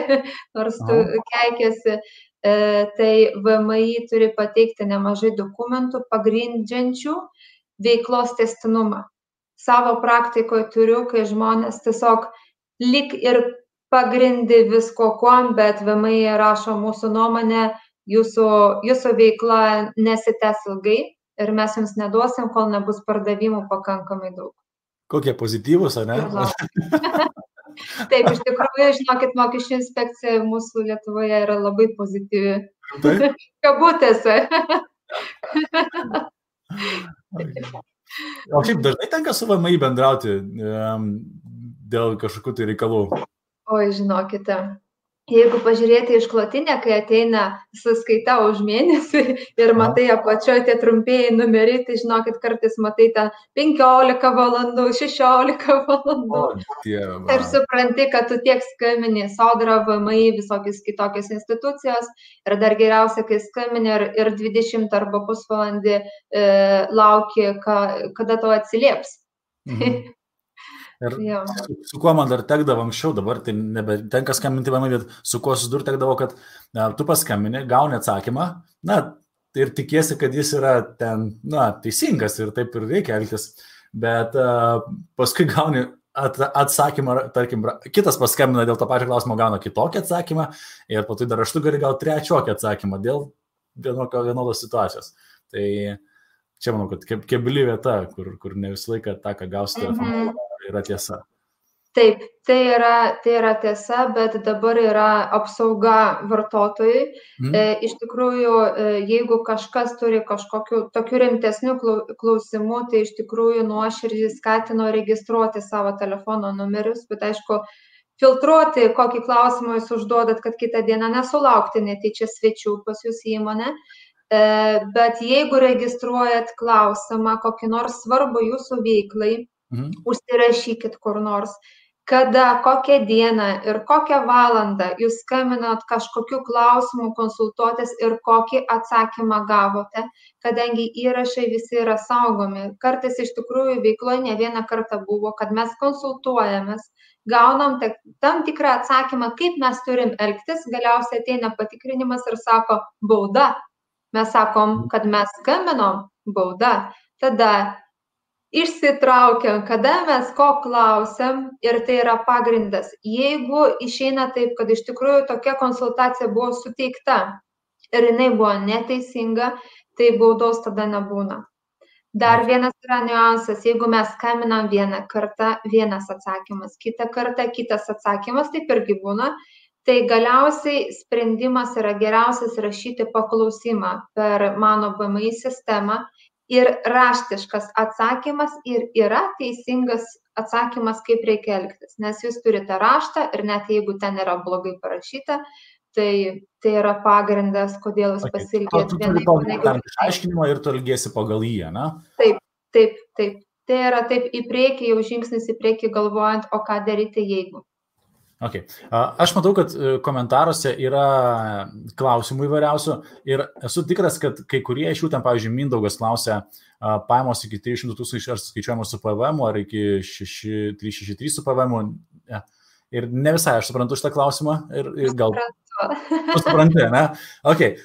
nors tu keikiasi, tai VMI turi pateikti nemažai dokumentų pagrindžiančių veiklos tęstinumą. Savo praktikoje turiu, kai žmonės tiesiog lyg ir pagrindi visko kuom, bet VMI rašo mūsų nuomonę, jūsų veikla nesitęs ilgai ir mes jums neduosim, kol nebus pardavimų pakankamai daug. Kokie pozityvūs, ar ne? Taip, iš tikrųjų, žinokit, mokesčių inspekcija mūsų Lietuvoje yra labai pozityvi. Kabutėse. O šiaip dažnai tenka su VMI bendrauti dėl kažkokių tai reikalų? Oi, žinokite, jeigu pažiūrėti išklotinę, kai ateina sąskaita už mėnesį ir matai apačioje tie trumpieji numeriai, tai žinokit, kartais matai ten 15 valandų, 16 valandų. Ir supranti, kad tu tiek skambini Sodra, VMI, visokios kitokios institucijos ir dar geriausia, kai skambini ir 20 arba pusvalandį lauki, kada tau atsilieps. Ir su kuo man dar tekdavo anksčiau, dabar tai nebetenka skambinti VMI, bet su kuo susidur tekdavo, kad tu paskambini, gauni atsakymą, ir tikiesi, kad jis yra ten, teisingas ir taip ir reikia elgtis, bet paskui gauni atsakymą, tarkim, kitas paskambina dėl to pačio klausimo, gauna kitokį atsakymą ir po to dar raštu gali gauti trečiokį atsakymą dėl vienodos situacijos. Tai čia manau, kad kebli vieta, kur ne visą laiką tą, ką gausi telefonu, yra tiesa. Taip, tai yra tiesa, bet dabar yra apsauga vartotojui. Iš tikrųjų, jeigu kažkas turi kažkokių tokių rimtesnių klausimų, tai iš tikrųjų nuoširdžiai skatino registruoti savo telefono numerius, bet aišku, filtruoti, kokį klausimą jūs užduodat, kad kitą dieną nesulaukti netyčia svečių pas jūs įmonę. Bet jeigu registruojat klausimą, kokį nors svarbų jūsų veiklai, užsirašykit kur nors. kada, kokią dieną ir kokią valandą jūs skambinot kažkokiu klausimu konsultuotis ir kokį atsakymą gavote, kadangi įrašai visi yra saugomi. Kartais iš tikrųjų veikloje ne vieną kartą buvo, kad mes konsultuojamės, gaunam tam tikrą atsakymą, kaip mes turim elgtis, galiausiai ateina patikrinimas ir sako bauda. Mes sakom, kad mes skambinom, bauda. Tada išsitraukiam, kada mes ko klausiam ir tai yra pagrindas. Jeigu išeina taip, kad iš tikrųjų tokia konsultacija buvo suteikta ir jinai buvo neteisinga, tai baudos tada nebūna. Dar vienas yra niuansas, jeigu mes skambinam vieną kartą, vienas atsakymas, kitą kartą kitas atsakymas, taip irgi būna, tai galiausiai sprendimas yra geriausias rašyti paklausimą per mano BMI sistemą. Ir raštiškas atsakymas ir yra teisingas atsakymas, kaip reikia elgtis. Nes jūs turite raštą ir net jeigu ten yra blogai parašyta, tai yra pagrindas, kodėl jūs pasiilgėt vienai. Tu turi išaiškinimą ir tu elgiesi pagal jį, ne? Taip. Tai yra taip į priekį, jau žingsnis į priekį galvojant, o ką daryti jeigu. Okay. Aš matau, kad komentaruose yra klausimų įvairiausių ir esu tikras, kad kai kurie iš jų ten, pavyzdžiui, Mindaugas klausia, pajamos iki 300 000 ar skaičiuojamos su PVM, ar iki 363 su PVM. Ja. Ir ne visai aš suprantu šitą klausimą ir gal... Tu supranti, ne? Okay.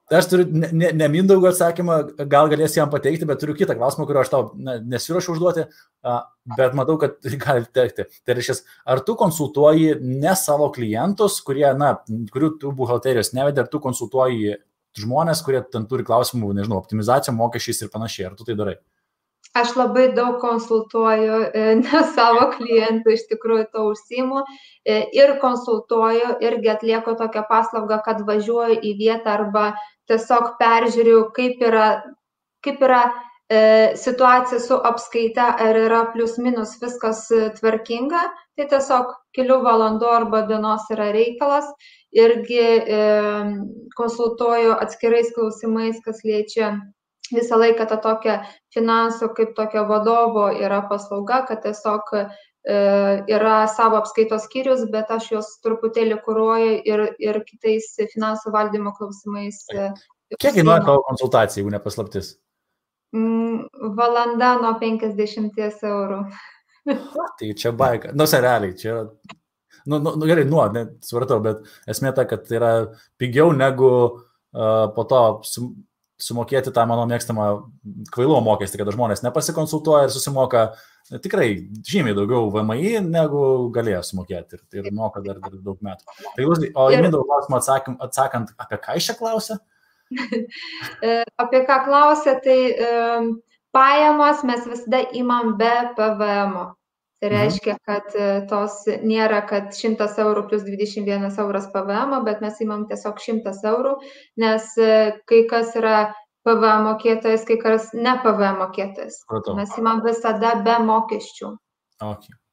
Aš turiu ne Mindaugo atsakymą, gal galėsi jam pateikti, bet turiu kitą klausimą, kurio aš tau nesiruošiu užduoti, bet matau, kad gali tekti. Tai reiškia, ar tu konsultuoji ne savo klientus, kurių tu buhalterijos nevedė, ar tu konsultuoji žmonės, kurie ten turi klausimų, nežinau, optimizacijom, mokesčiais ir panašiai, ar tu tai darai? Aš labai daug konsultuoju, ne savo klientų, iš tikrųjų to užsiimu ir konsultuoju, irgi atlieku tokią paslaugą, kad važiuoju į vietą arba tiesiog peržiūriu, kaip yra situacija su apskaita, ar yra plius minus viskas tvarkinga, tai tiesiog kelių valandų arba dienos yra reikalas, irgi konsultuoju atskirais klausimais, kas liečia visą laiką tą tokią finansų kaip tokio vadovo yra paslauga, kad tiesiog yra savo apskaitos skyrius, bet aš jos truputėlį kuruoju ir kitais finansų valdymo klausimais. Kiek kainuoja tavo konsultacija, jeigu nepaslaptis? Valanda nuo 50 eurų. Tai čia baika. Realiai, čia... gerai, supratau, bet esmė ta, kad tai yra pigiau negu po to sumokėti tą mano mėgstamą kvailumo mokestį, kada žmonės nepasikonsultuoja ir susimoka tikrai žymiai daugiau VMI, negu galėjo sumokėti ir moka dar daug metų. Tai, o į Mindaugo klausimą atsakant, apie ką iš čia klausia? Apie ką klausia, tai pajamos mes visada imam be PVM. Tai reiškia, kad tos nėra, kad 100 eurų plus 21 euras PVM, bet mes imam tiesiog 100 eurų, nes kai kas yra PVM mokėtojas, kai kas ne PVM mokėtojas. Mes imam visada be mokesčių.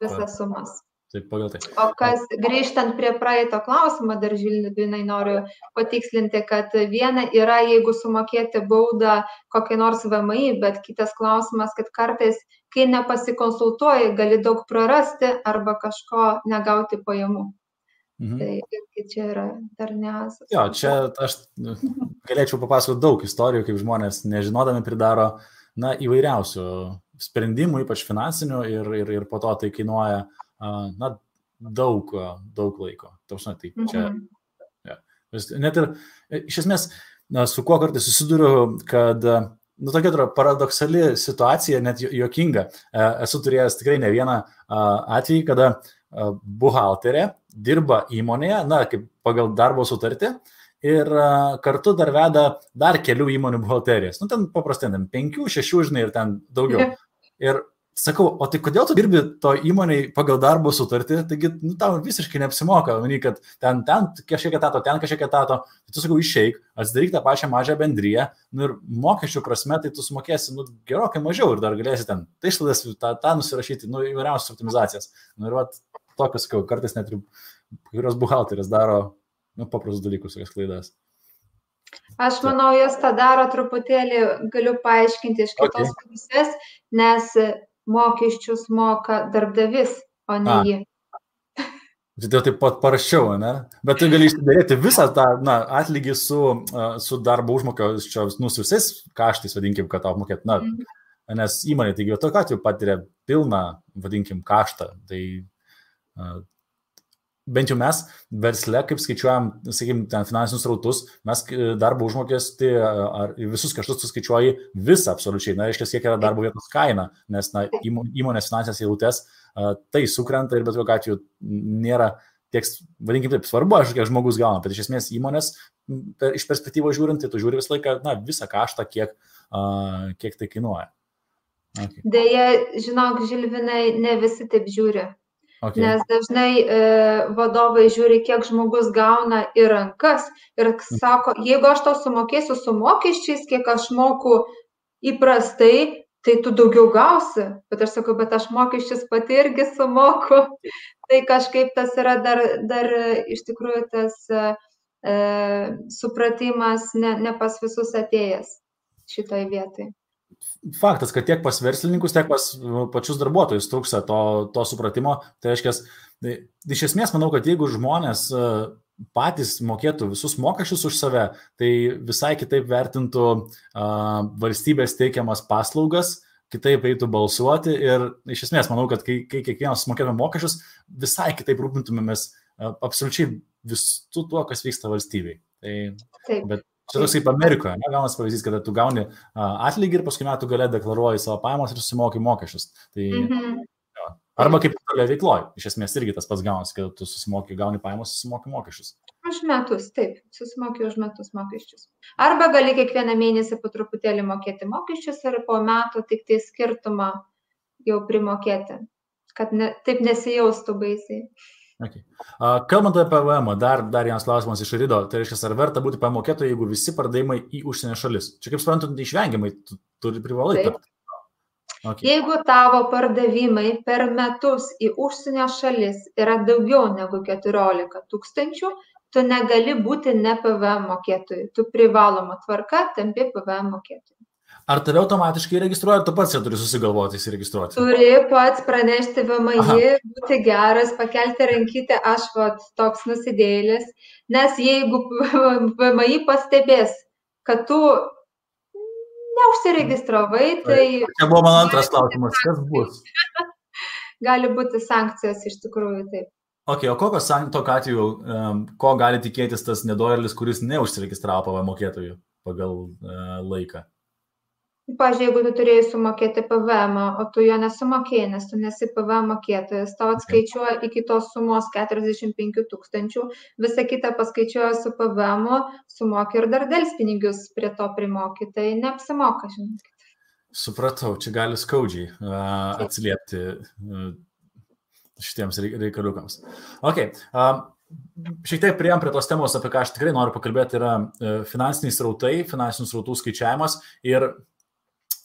Visas sumas. Taip, pagal tai. O kas, grįžtant prie praeito klausimo, dar Žilvinai noriu patikslinti, kad viena yra, jeigu sumokėti baudą kokiai nors VMI, bet kitas klausimas, kad kartais, kai nepasikonsultuoji, gali daug prarasti arba kažko negauti pajamų. Tai čia yra dar niuansas. Jo, čia aš galėčiau papasakoti daug istorijų, kaip žmonės nežinodami pridaro įvairiausių sprendimų, ypač finansinių ir po to tai kainuoja daug laiko. Tai čia, net ir iš esmės, su kuo kartais susiduriu, kad tokia paradoksali situacija, net juokinga. Esu turėjęs tikrai ne vieną atvejį, kada buhalterė dirba įmonėje, kaip pagal darbo sutartį, ir kartu dar veda dar kelių įmonių buhalterijas. Ten paprastai, 5, 6, žinai, ir ten daugiau. Ir sakau, o tai kodėl tu dirbi to įmonėj pagal darbo sutartį, taigi tau visiškai neapsimoka, kad ten kažkiek etato, ten kažkiek etato, tai tu sakau, išeik, atsidaryk tą pačią mažą bendriją, ir mokesčių prasme, tai tu sumokėsi gerokai mažiau ir dar galėsi ten tai išlaidas tą nusirašyti, įvairiausias optimizacijas. Ir tokius, sakau, kartais net ir kurios buhalteris daro paprastus dalykus, tokias klaidas. Aš manau, jos tą daro truputėlį, galiu paaiškinti iš kitos pusės, nes mokesčius moka darbdavys, o ne jį. Tai taip pat paraščiau, ne? Bet tu gali išsidaryti visą tą atlygį su darbo užmokesčio su visais kaštais, vadinkim, kad tau apmokėt. Nes įmonė, taigi, tokiu atveju patiria pilną, vadinkim, kaštą. Tai bent jau mes versle, kaip skaičiuojam, sakykim, ten finansinius rautus, mes darbo užmokestį ar visus kaštus suskaičiuoji visą absoliučiai. Na, reiškia, kiek yra darbo vietos kaina, nes įmonės finansinės eilutės tai sukrenta ir bet kokiu atveju nėra tiek, vadinkim taip, svarbu, kiek žmogus gauna, bet iš esmės įmonės iš perspektyvos žiūrint, tai tu žiūri visą laiką, visą kaštą, kiek tai kainuoja. Okay. Deja, žinok, Žilvinai, ne visi taip žiūri. Okay. Nes dažnai vadovai žiūri, kiek žmogus gauna į rankas ir sako, jeigu aš tau sumokėsiu su mokesčiais, kiek aš moku įprastai, tai tu daugiau gausi. Bet aš sakau, bet aš mokesčius pati irgi sumoku. Tai kažkaip tas yra dar iš tikrųjų tas supratimas ne pas visus atėjęs šitoj vietai. Faktas, kad tiek pas verslininkus, tiek pas pačius darbuotojus trūksta to supratimo. Tai reiškia, iš esmės manau, kad jeigu žmonės patys mokėtų visus mokesčius už save, tai visai kitaip vertintų valstybės teikiamas paslaugas, kitaip eitų balsuoti ir iš esmės manau, kad kai kiekvienas mokėtume mokesčius, visai kitaip rūpintumėmės absoliučiai visu tuo, kas vyksta valstybei. Bet čia toks kaip Amerikoje, gaunas pavyzdys, kada tu gauni atlygį ir paskui metų gale deklaruoji savo pajamas ir susimoki mokesčius. Tai, arba kaip tolia veikloji, iš esmės irgi tas pats gaunas, kad tu gauni pajamas, susimoki mokesčius. Už metus, taip, susimoki už metus mokesčius. Arba gali kiekvieną mėnesį po truputėlį mokėti mokesčius ir po metų tik tai skirtumą jau primokėti, kad taip nesijaustų baisiai. Okay. Kalbant apie PVM, dar vienas klausimas iš Rido, tai reiškia, ar verta būti pamokėtojai, jeigu visi pardavimai į užsienio šalis? Čia kaip suprantu, neišvengiamai, tu privalai tapti. Okay. Jeigu tavo pardavimai per metus į užsienio šalis yra daugiau negu 14 000, tu negali būti ne PVM mokėtojai, tu privaloma tvarka tampi PVM mokėtojai. Ar tave automatiškai registruoja, ar tu pats turi susigalvoti įsiregistruoti? Turi pats pranešti VMI, būti geras, pakelti rankytę, aš toks nusidėlis, nes jeigu VMI pastebės, kad tu neužsiregistravai, tai... Čia buvo mano antras klausimas, kas bus? Gali būti sankcijos iš tikrųjų, taip. Okay, o kokios tokiu atveju, ko gali tikėtis tas nedorėlis, kuris neužsiregistravo PVM mokėtojų pagal laiką? Pavyzdžiui, jeigu tu turėjai sumokėti PVM, o tu jo nesumokėjai, nes tu nesi PVM mokėtojas, tau atskaičiuoja iki tos sumos 45 000, visą kitą paskaičiuoja su PVM, sumoki ir dar delspinigius prie to primoki, tai neapsimoka, žinokit. Supratau, čia gali skaudžiai atsiliepti šitiems reikaliukams. Okay. Šiek tiek priėjom prie tos temos, apie ką aš tikrai noriu pakalbėti, yra finansiniai srautai, finansinių srautų skaičiavimas ir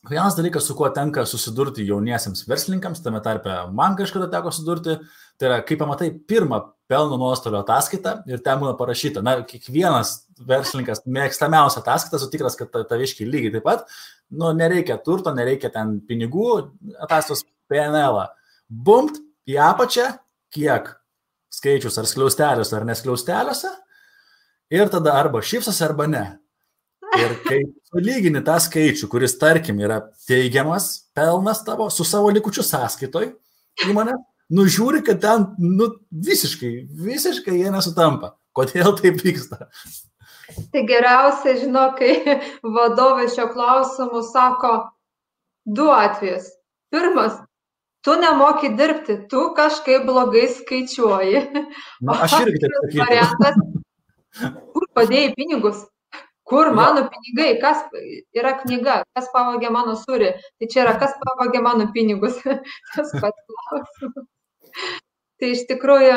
vienas dalykas, su kuo tenka susidurti jauniesiems verslininkams, tame tarpe man kažkada teko susidurti, tai yra, kaip pamatai pirmą pelno nuostolio ataskaitą ir ten būna parašyta, kiekvienas verslininkas mėgstamiausia ataskaita, sutikras, kad taviškiai lygiai taip pat, nereikia turto, nereikia ten pinigų, ataskaitos PNL-ą. Bumpt į apačią, kiek skaičius, ar skliausteliuose, ar neskliausteliuose, ir tada arba šypsosi, arba ne. Ir kai sulygini tą skaičių, kuris, tarkim, yra teigiamas pelnas tavo su savo likučiu sąskaitoj įmonė, žiūri, kad ten visiškai jie nesutampa. Kodėl taip vyksta? Tai geriausia, žinok, kai vadovai šio klausimu sako 2 atvejus. Pirmas, tu nemoki dirbti, tu kažkaip blogai skaičiuoji. Aš irgi taip sakyčiau. Kur padėjai pinigus? Kur mano pinigai? Kas yra knyga? Kas pavogė mano sūrį? Tai čia yra, kas pavogė mano pinigus? Tas pats klausimas. Tai iš tikrųjų,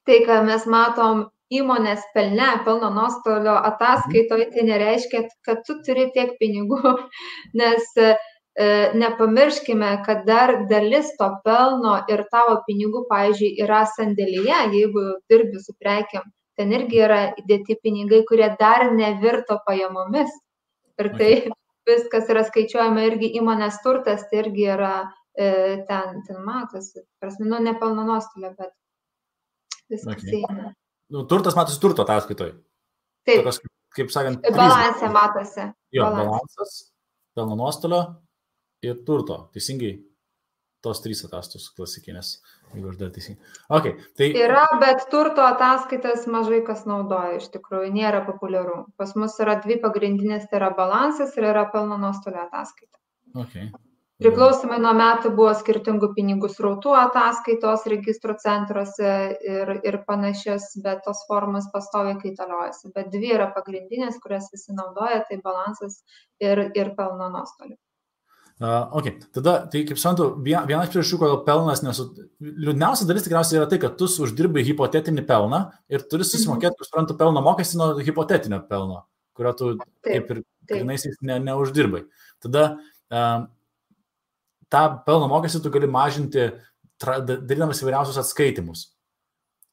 tai, ką mes matom įmonės pelno nuostolio ataskaitoje, tai nereiškia, kad tu turi tiek pinigų, nes nepamirškime, kad dar dalis to pelno ir tavo pinigų, pavyzdžiui, yra sandėlyje, jeigu dirbi su prekiam. Ten irgi yra įdėti pinigai, kurie dar nevirto pajamomis. Ir tai viskas yra skaičiuojama irgi įmonės turtas, tai irgi yra ten matosi. Prasme, ne pelno nuostolio, bet viskas Okay. eina. Turtas matosi turto ataskaitoj. Taip, Tokios, kaip sakant, balansė matosi. Jo, balansas, pelno nuostolio ir turto. Teisingai, tos 3 ataskaitos klasikinės, jeigu aš dar teisingai. Okay, tai... Yra, bet turto ataskaitas mažai kas naudoja, iš tikrųjų, nėra populiaru. Pas mus yra 2 pagrindinės, tai yra balansas ir yra pelno nuostolio ataskaita. Okay. Priklausomai nuo metų buvo skirtingų pinigų srautų ataskaitos registrų centruose ir panašias, bet tos formos pastoviai kaitaliojasi. Bet 2 yra pagrindinės, kurias visi naudoja, tai balansas ir pelno nuostolių. Okay. Tada, tai kaip suprantu, vienas priežasčių, kodėl pelnas liūdniausia dalis tikriausiai yra tai, kad tu uždirbai hipotetinį pelną ir turi susimokėti, kaip suprantu, pelno mokestį nuo hipotetinio pelno, kurio tu kaip ir grynaisiais neuždirbai. Tada tą pelno mokestį tu gali mažinti, darydamas įvairiausius atskaitimus.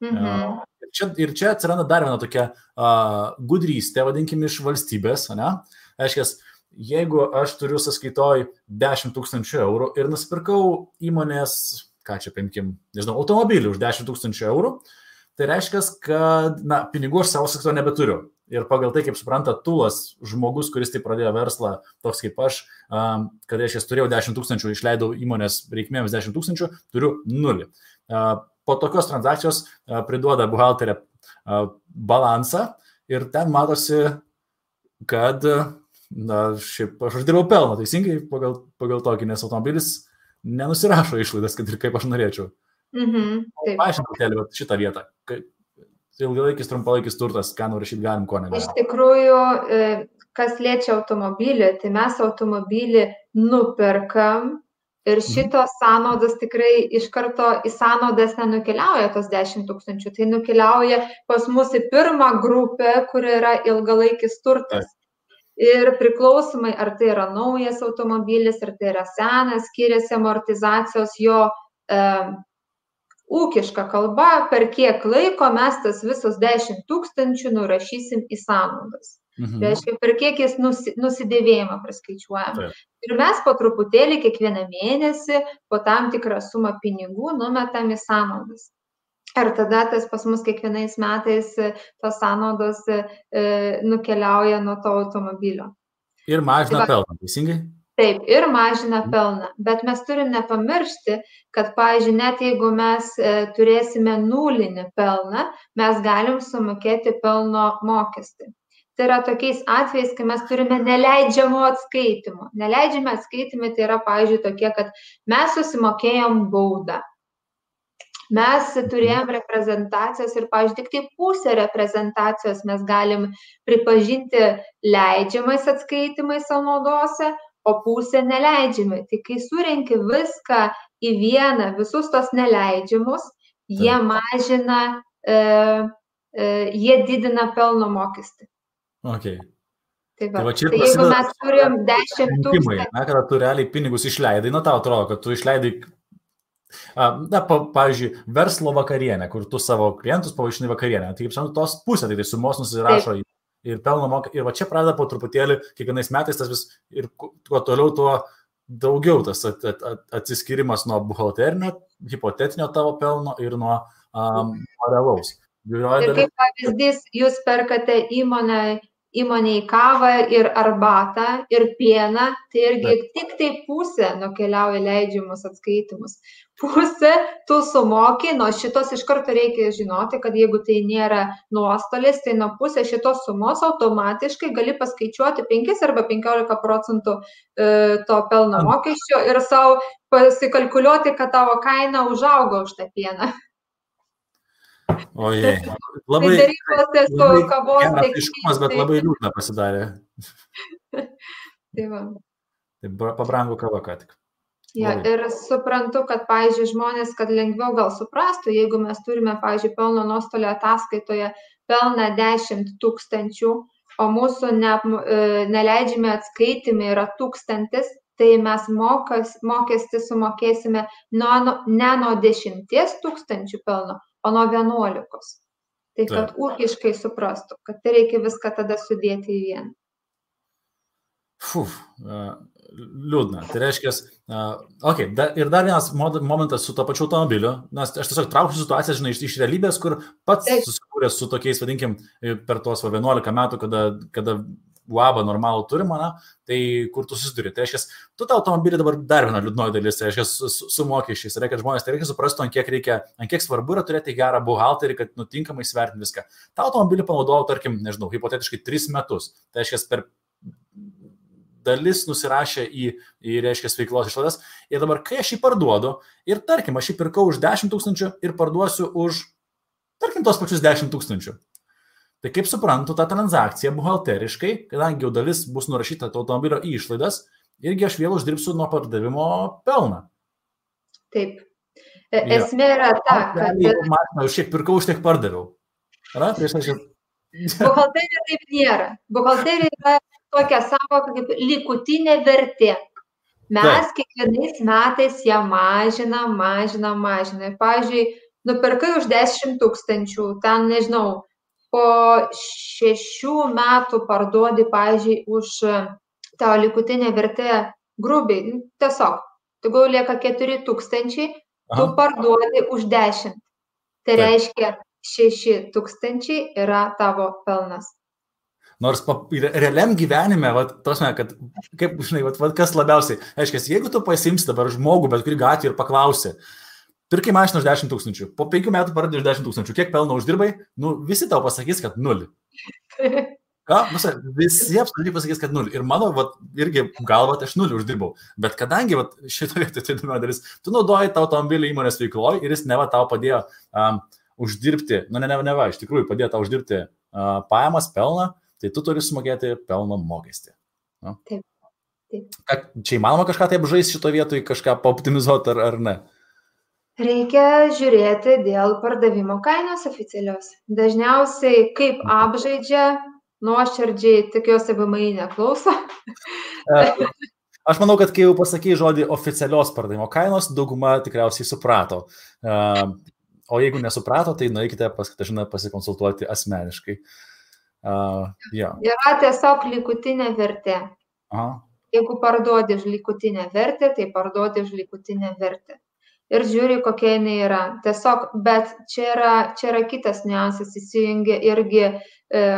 Ir čia atsiranda dar viena tokia gudrystė, vadinkime, iš valstybės, ne? Aiškiai, jeigu aš turiu sąskaitoj 10 000 eurų ir nusipirkau įmonės, ką čia paimkim, nežinau, automobilį už 10 000 eurų, tai reiškia, kad, pinigų aš savo sąskaitoj nebeturiu. Ir pagal tai, kaip supranta tūlas, žmogus, kuris tai pradėjo verslą, toks kaip aš, kad aš turėjau 10 000, išleidau įmonės reikmėms 10 000, turiu 0. Po tokios transakcijos priduoda buhalterė balansą ir ten matosi, kad šiaip aš uždirbau pelną, teisingai pagal tokį, nes automobilis nenusirašo išlaidas, kad ir kaip aš norėčiau. Paaiškinti šitą vietą. Ilgalaikis, trumpalaikis turtas, ką nurašyti galim, ko negalim. Iš tikrųjų, kas liečia automobilį, tai mes automobilį nuperkam ir šitos sąnaudos tikrai iš karto į sąnaudas nenukeliauja tos 10 000, tai nukeliauja pas mus į pirmą grupę, kur yra ilgalaikis turtas. Ir priklausomai, ar tai yra naujas automobilis, ar tai yra senas, skiriasi amortizacijos jo ūkiška kalba, per kiek laiko mes tas visus 10 000 nurašysim į sąnaudas. Reiškia, per kiek jis nusidėvėjimą praskaičiuojam. Ir mes po truputėlį kiekvieną mėnesį po tam tikrą sumą pinigų numetam į sąnaudas. Ir tada tas pas mus kiekvienais metais tos sąnaudos nukeliauja nuo to automobilio. Ir mažina pelną, teisingai? Taip, ir mažina pelną, bet mes turim nepamiršti, kad, pavyzdžiui, net jeigu mes turėsime nulinį pelną, mes galim sumokėti pelno mokestį. Tai yra tokiais atvejais, kai mes turime neleidžiamų atskaitimų. Neleidžiami atskaitymai tai yra, pavyzdžiui, tokie, kad mes susimokėjom baudą. Mes turėjom reprezentacijos ir, pavyzdžiui, tik tai pusę reprezentacijos mes galim pripažinti leidžiamais atskaitimais sąnaudose, o pusę neleidžiamai. Tai kai surenki viską į vieną, visus tos neleidžiamus, jie mažina, jie didina pelno mokestį. Okay. Tai jeigu mes turim 10 000... Kada tu realiai pinigus išleidai, tau atrodo, kad tu išleidai, pavyzdžiui, verslo vakarienę, kur tu savo klientus pavaišinai vakarienę. Tai kaip žinau, tos pusė, tai sumos nusirašo ir pelno mokestį. Ir va čia pradeda po truputėlį, kiekvienais metais tas vis, ir kuo toliau, tuo daugiau tas atsiskirimas nuo buhalterinio, hipotetinio tavo pelno ir nuo realaus. Ir kaip pavyzdys, jūs perkate įmonėj kavą ir arbatą ir pieną, tai irgi tik tai pusė nukeliauja leidžiamus atskaitimus. Pusė tu sumoki, nuo šitos iš karto reikia žinoti, kad jeigu tai nėra nuostolis, tai nuo pusės šitos sumos automatiškai gali paskaičiuoti 5 arba 15% to pelno mokesčio ir savo pasikalkuliuoti, kad tavo kaina užaugo už tą pieną. Ojei, labai aiškumas, bet labai liūdna pasidarė. Tai va. Tai pabrango kava ką tik. Ja, ir suprantu, kad, pavyzdžiui, žmonės, kad lengviau gal suprastų, jeigu mes turime, pavyzdžiui, pelno nuostolio ataskaitoje pelną 10 000, o mūsų neleidžiami atskaitimai yra 1000, tai mes mokestį sumokėsime ne nuo 10 000 pelno, o nuo 11. Tai kad ūkiškai suprastų, kad tai reikia viską tada sudėti į vieną. Liūdna. Tai reiškia, ir dar vienas momentas su to pačiu automobiliu, nes aš tiesiog trauksiu situaciją, žinai, iš realybės, kur pats susikūręs su tokiais, vadinkim, per tuos 11 metų, kada UABą normalų turim, tai kur tu susiduri. Tai reiškia, tu tą automobilį dabar dar viena liūdnoji dalis, tai reiškia, su mokesčiais. Tai reiškia, žmonės, tai reikia suprastų, ant kiek svarbu yra turėti gerą buhalterį, kad nutinkamai svertinti viską. Ta automobilį panaudojau, tarkim, nežinau, hipotetiškai 3 metus. Tai reiškia, per dalis nusirašė į reiškia, veiklos išlaidas. Ir dabar, kai aš jį parduodu, ir tarkim, aš jį pirkau už 10 000 ir parduosiu už, tarkim, tos pačius 10 000. Tai kaip suprantu, ta transakcija buhalteriškai, kadangi jau dalis bus nurašyta to automobilio į išlaidas, irgi aš vėl uždirbsiu nuo pardavimo pelną. Taip. Esmė yra ta, kad... Mašina, už kiek pirkau, už tiek pardaviau. Buhalterija taip nėra. Buhalterija yra tokia savoka kaip likutinė vertė. Mes kiekvienais metais ją mažinam. Pavyzdžiui, nupirkai už 10 000, ten, nežinau, po 6 metų parduodi, pavyzdžiui, už tavo likutinę vertę grubiai. Tiesiog, tu lieka 4 000, tu parduodi už 10. Tai reiškia, 6 000 yra tavo pelnas. Nors realiam gyvenime, kad, kaip, žinai, kas labiausiai, aiškiai, jeigu tu pasimsi dabar žmogų, bet kurį gatvį ir paklausi, pirkai mašiną už 10 000, po 5 metų pardai už 10 000, kiek pelno uždirbai, visi tau pasakys, kad 0. Visi absoliučiai pasakys, kad 0. Ir mano, irgi galva, aš 0 uždirbau. Bet kadangi, šitoje įdomi dalis, tu naudoji tą automobilį įmonės veikloje ir jis neva tau padėjo uždirbti, iš tikrųjų padėjo tau uždirbti pajamas, pelną, tai tu turi sumokėti pelno mokestį. Taip. Čia įmanoma kažką taip žaisti šito vietoj, kažką paoptimizuoti ar ne? Reikia žiūrėti dėl pardavimo kainos oficialios. Dažniausiai kaip apžaidžia, nuoširdžiai, tikiuosi VMI neklauso. Aš manau, kad kai jau pasakei žodį oficialios pardavimo kainos, dauguma tikriausiai suprato. O jeigu nesuprato, tai nueikite pas Katažiną pasikonsultuoti asmeniškai. Yra tiesiog likutinė vertė. Jeigu parduodi už likutinę vertę, tai parduodi už likutinę vertę. Ir žiūri, kokia jinai yra. Tiesiog, bet čia yra kitas niuansas, įsijungia irgi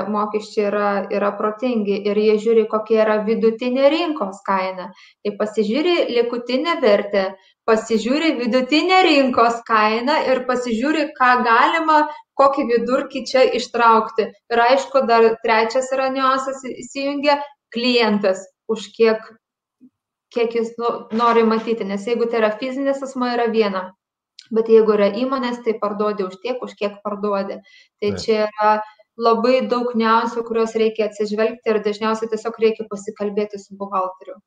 mokesčiai yra protingi ir jie žiūri, kokia yra vidutinė rinkos kaina. Tai pasižiūri likutinę vertę, pasižiūri vidutinę rinkos kainą ir pasižiūri, ką galima, kokį vidurkį čia ištraukti. Ir aišku, dar trečias yra niuansas, įsijungia klientas, už kiek jis nori matyti. Nes jeigu tai yra fizinis asmuo, yra viena. Bet jeigu yra įmonės, tai parduodi už tiek, už kiek parduodi. Tai čia yra labai daug niuansų, kuriuos reikia atsižvelgti ir dažniausiai tiesiog reikia pasikalbėti su buhalteriu.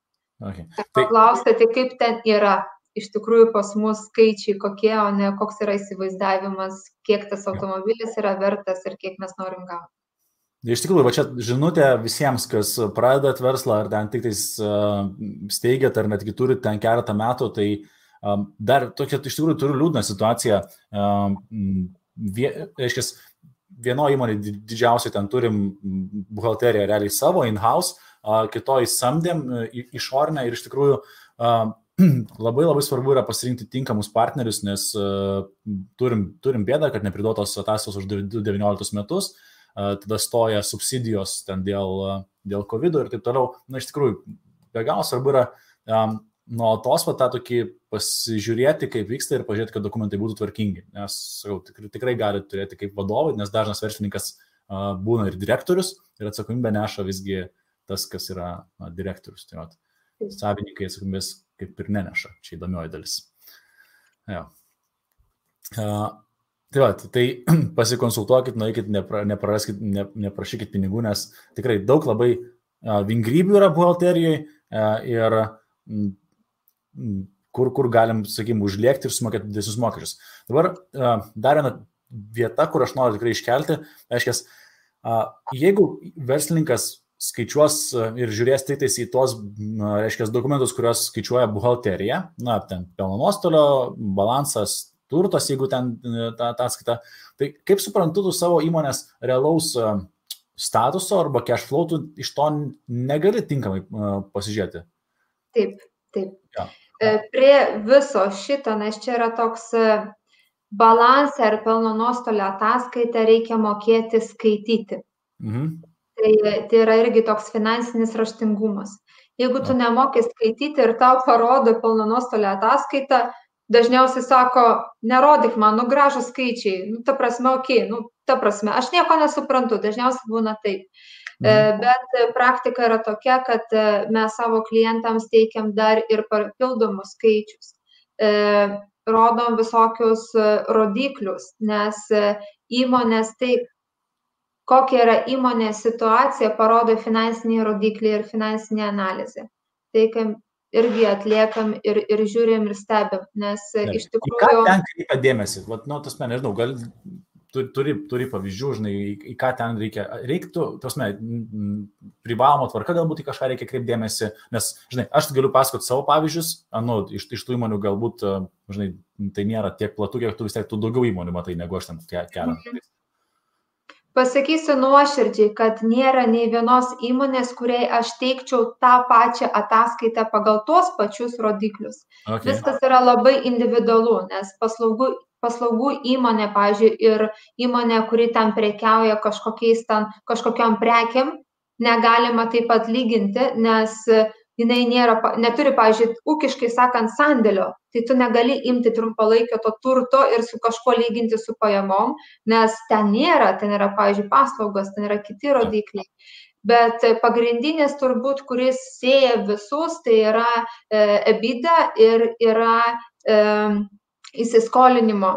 Paklausti, tai kaip ten yra. Iš tikrųjų pas mus skaičiai kokie, o ne koks yra įsivaizdavimas, kiek tas automobilis yra vertas ir kiek mes norim gauti. Iš tikrųjų, čia žinutė visiems, kas pradedat verslą, ar ten tik steigiat, ar netgi turit ten keletą metų, tai dar tokia, iš tikrųjų, turiu liūdną situaciją. Vienoje įmonėje didžiausiai ten turim buhalteriją realiai savo, in-house, kitoj samdėm išorinę ir iš tikrųjų labai svarbu yra pasirinkti tinkamus partnerius, nes turim bėdą, kad nepriduotos ataskaitos už 19 metus, tada stoja subsidijos ten dėl COVID ir taip toliau. Iš tikrųjų, be galo svarbu yra nuolatos tą tokį pasižiūrėti, kaip vyksta ir pažiūrėti, kad dokumentai būtų tvarkingi. Nes, sakau, tikrai gali turėti kaip vadovai, nes dažnas verslininkas būna ir direktorius ir atsakomybę neša visgi tas, kas yra direktorius. Tai savininkai atsakomybės kaip ir neneša. Čia įdomioji dalis. Tai pasikonsultuokit, nueikit, neprašykit pinigų, nes tikrai daug labai vingrybių yra buhalterijoje ir kur galim, sakykime, užlėkti ir sumokėti didesnius mokesčius. Dabar dar viena vieta, kur aš noriu tikrai iškelti, reiškia, jeigu verslininkas skaičiuos ir žiūrės tik į tuos, reiškia, dokumentus, kuriuos skaičiuoja buhalterija, ten pelno nuostolio, balansas, turtas, jeigu ten tą ataskaitą, tai kaip suprantu, tu savo įmonės realaus statuso arba cash flow, tu iš to negali tinkamai pasižiūrėti. Taip, taip. Ja. Prie viso šito, nes čia yra toks balansą ir pelno nuostolio ataskaitą reikia mokėti skaityti. Tai yra irgi toks finansinis raštingumas. Jeigu tu nemoki skaityti ir tau parodo pelno nuostolio ataskaitą, dažniausiai sako, nerodyk man, gražūs skaičiai, ta prasme, ta prasme, aš nieko nesuprantu, dažniausiai būna taip. Bet praktika yra tokia, kad mes savo klientams teikiam dar ir papildomus skaičius. Rodom visokius rodiklius, nes įmonės taip, kokia yra įmonės situacija, parodo finansiniai rodikliai ir finansinė analizė. Tai irgi atliekam ir žiūrim ir stebim, nes iš tikrųjų... Į ką ten kreipia dėmesį? Nežinau, gal turi pavyzdžių, žinai, į ką ten reiktų, privaloma tvarka galbūt į kažką reikia kreipti dėmesį, nes, žinai, aš galiu pasakoti savo pavyzdžius, iš tų įmonių galbūt, žinai, tai nėra tiek platu, kiek tu vis tiek, tu daugiau įmonių matai, negu aš ten keliam. Pasakysiu nuoširdžiai, kad nėra nei vienos įmonės, kuriai aš teikčiau tą pačią ataskaitą pagal tuos pačius rodiklius. Okay. Viskas yra labai individualu, nes paslaugų įmonė, pavyzdžiui, ir įmonė, kuri ten prekiauja kažkokiam prekiam, negalima taip pat lyginti, nes jinai neturi, pavyzdžiui, ūkiškai sakant, sandėlio. Tai tu negali imti trumpalaikio to turto ir su kažkuo lyginti su pajamom, nes ten nėra, pavyzdžiui, paslaugos, ten yra kiti rodikliai. Bet pagrindinis turbūt, kuris sieja visus, tai yra EBITDA ir yra įsiskolinimo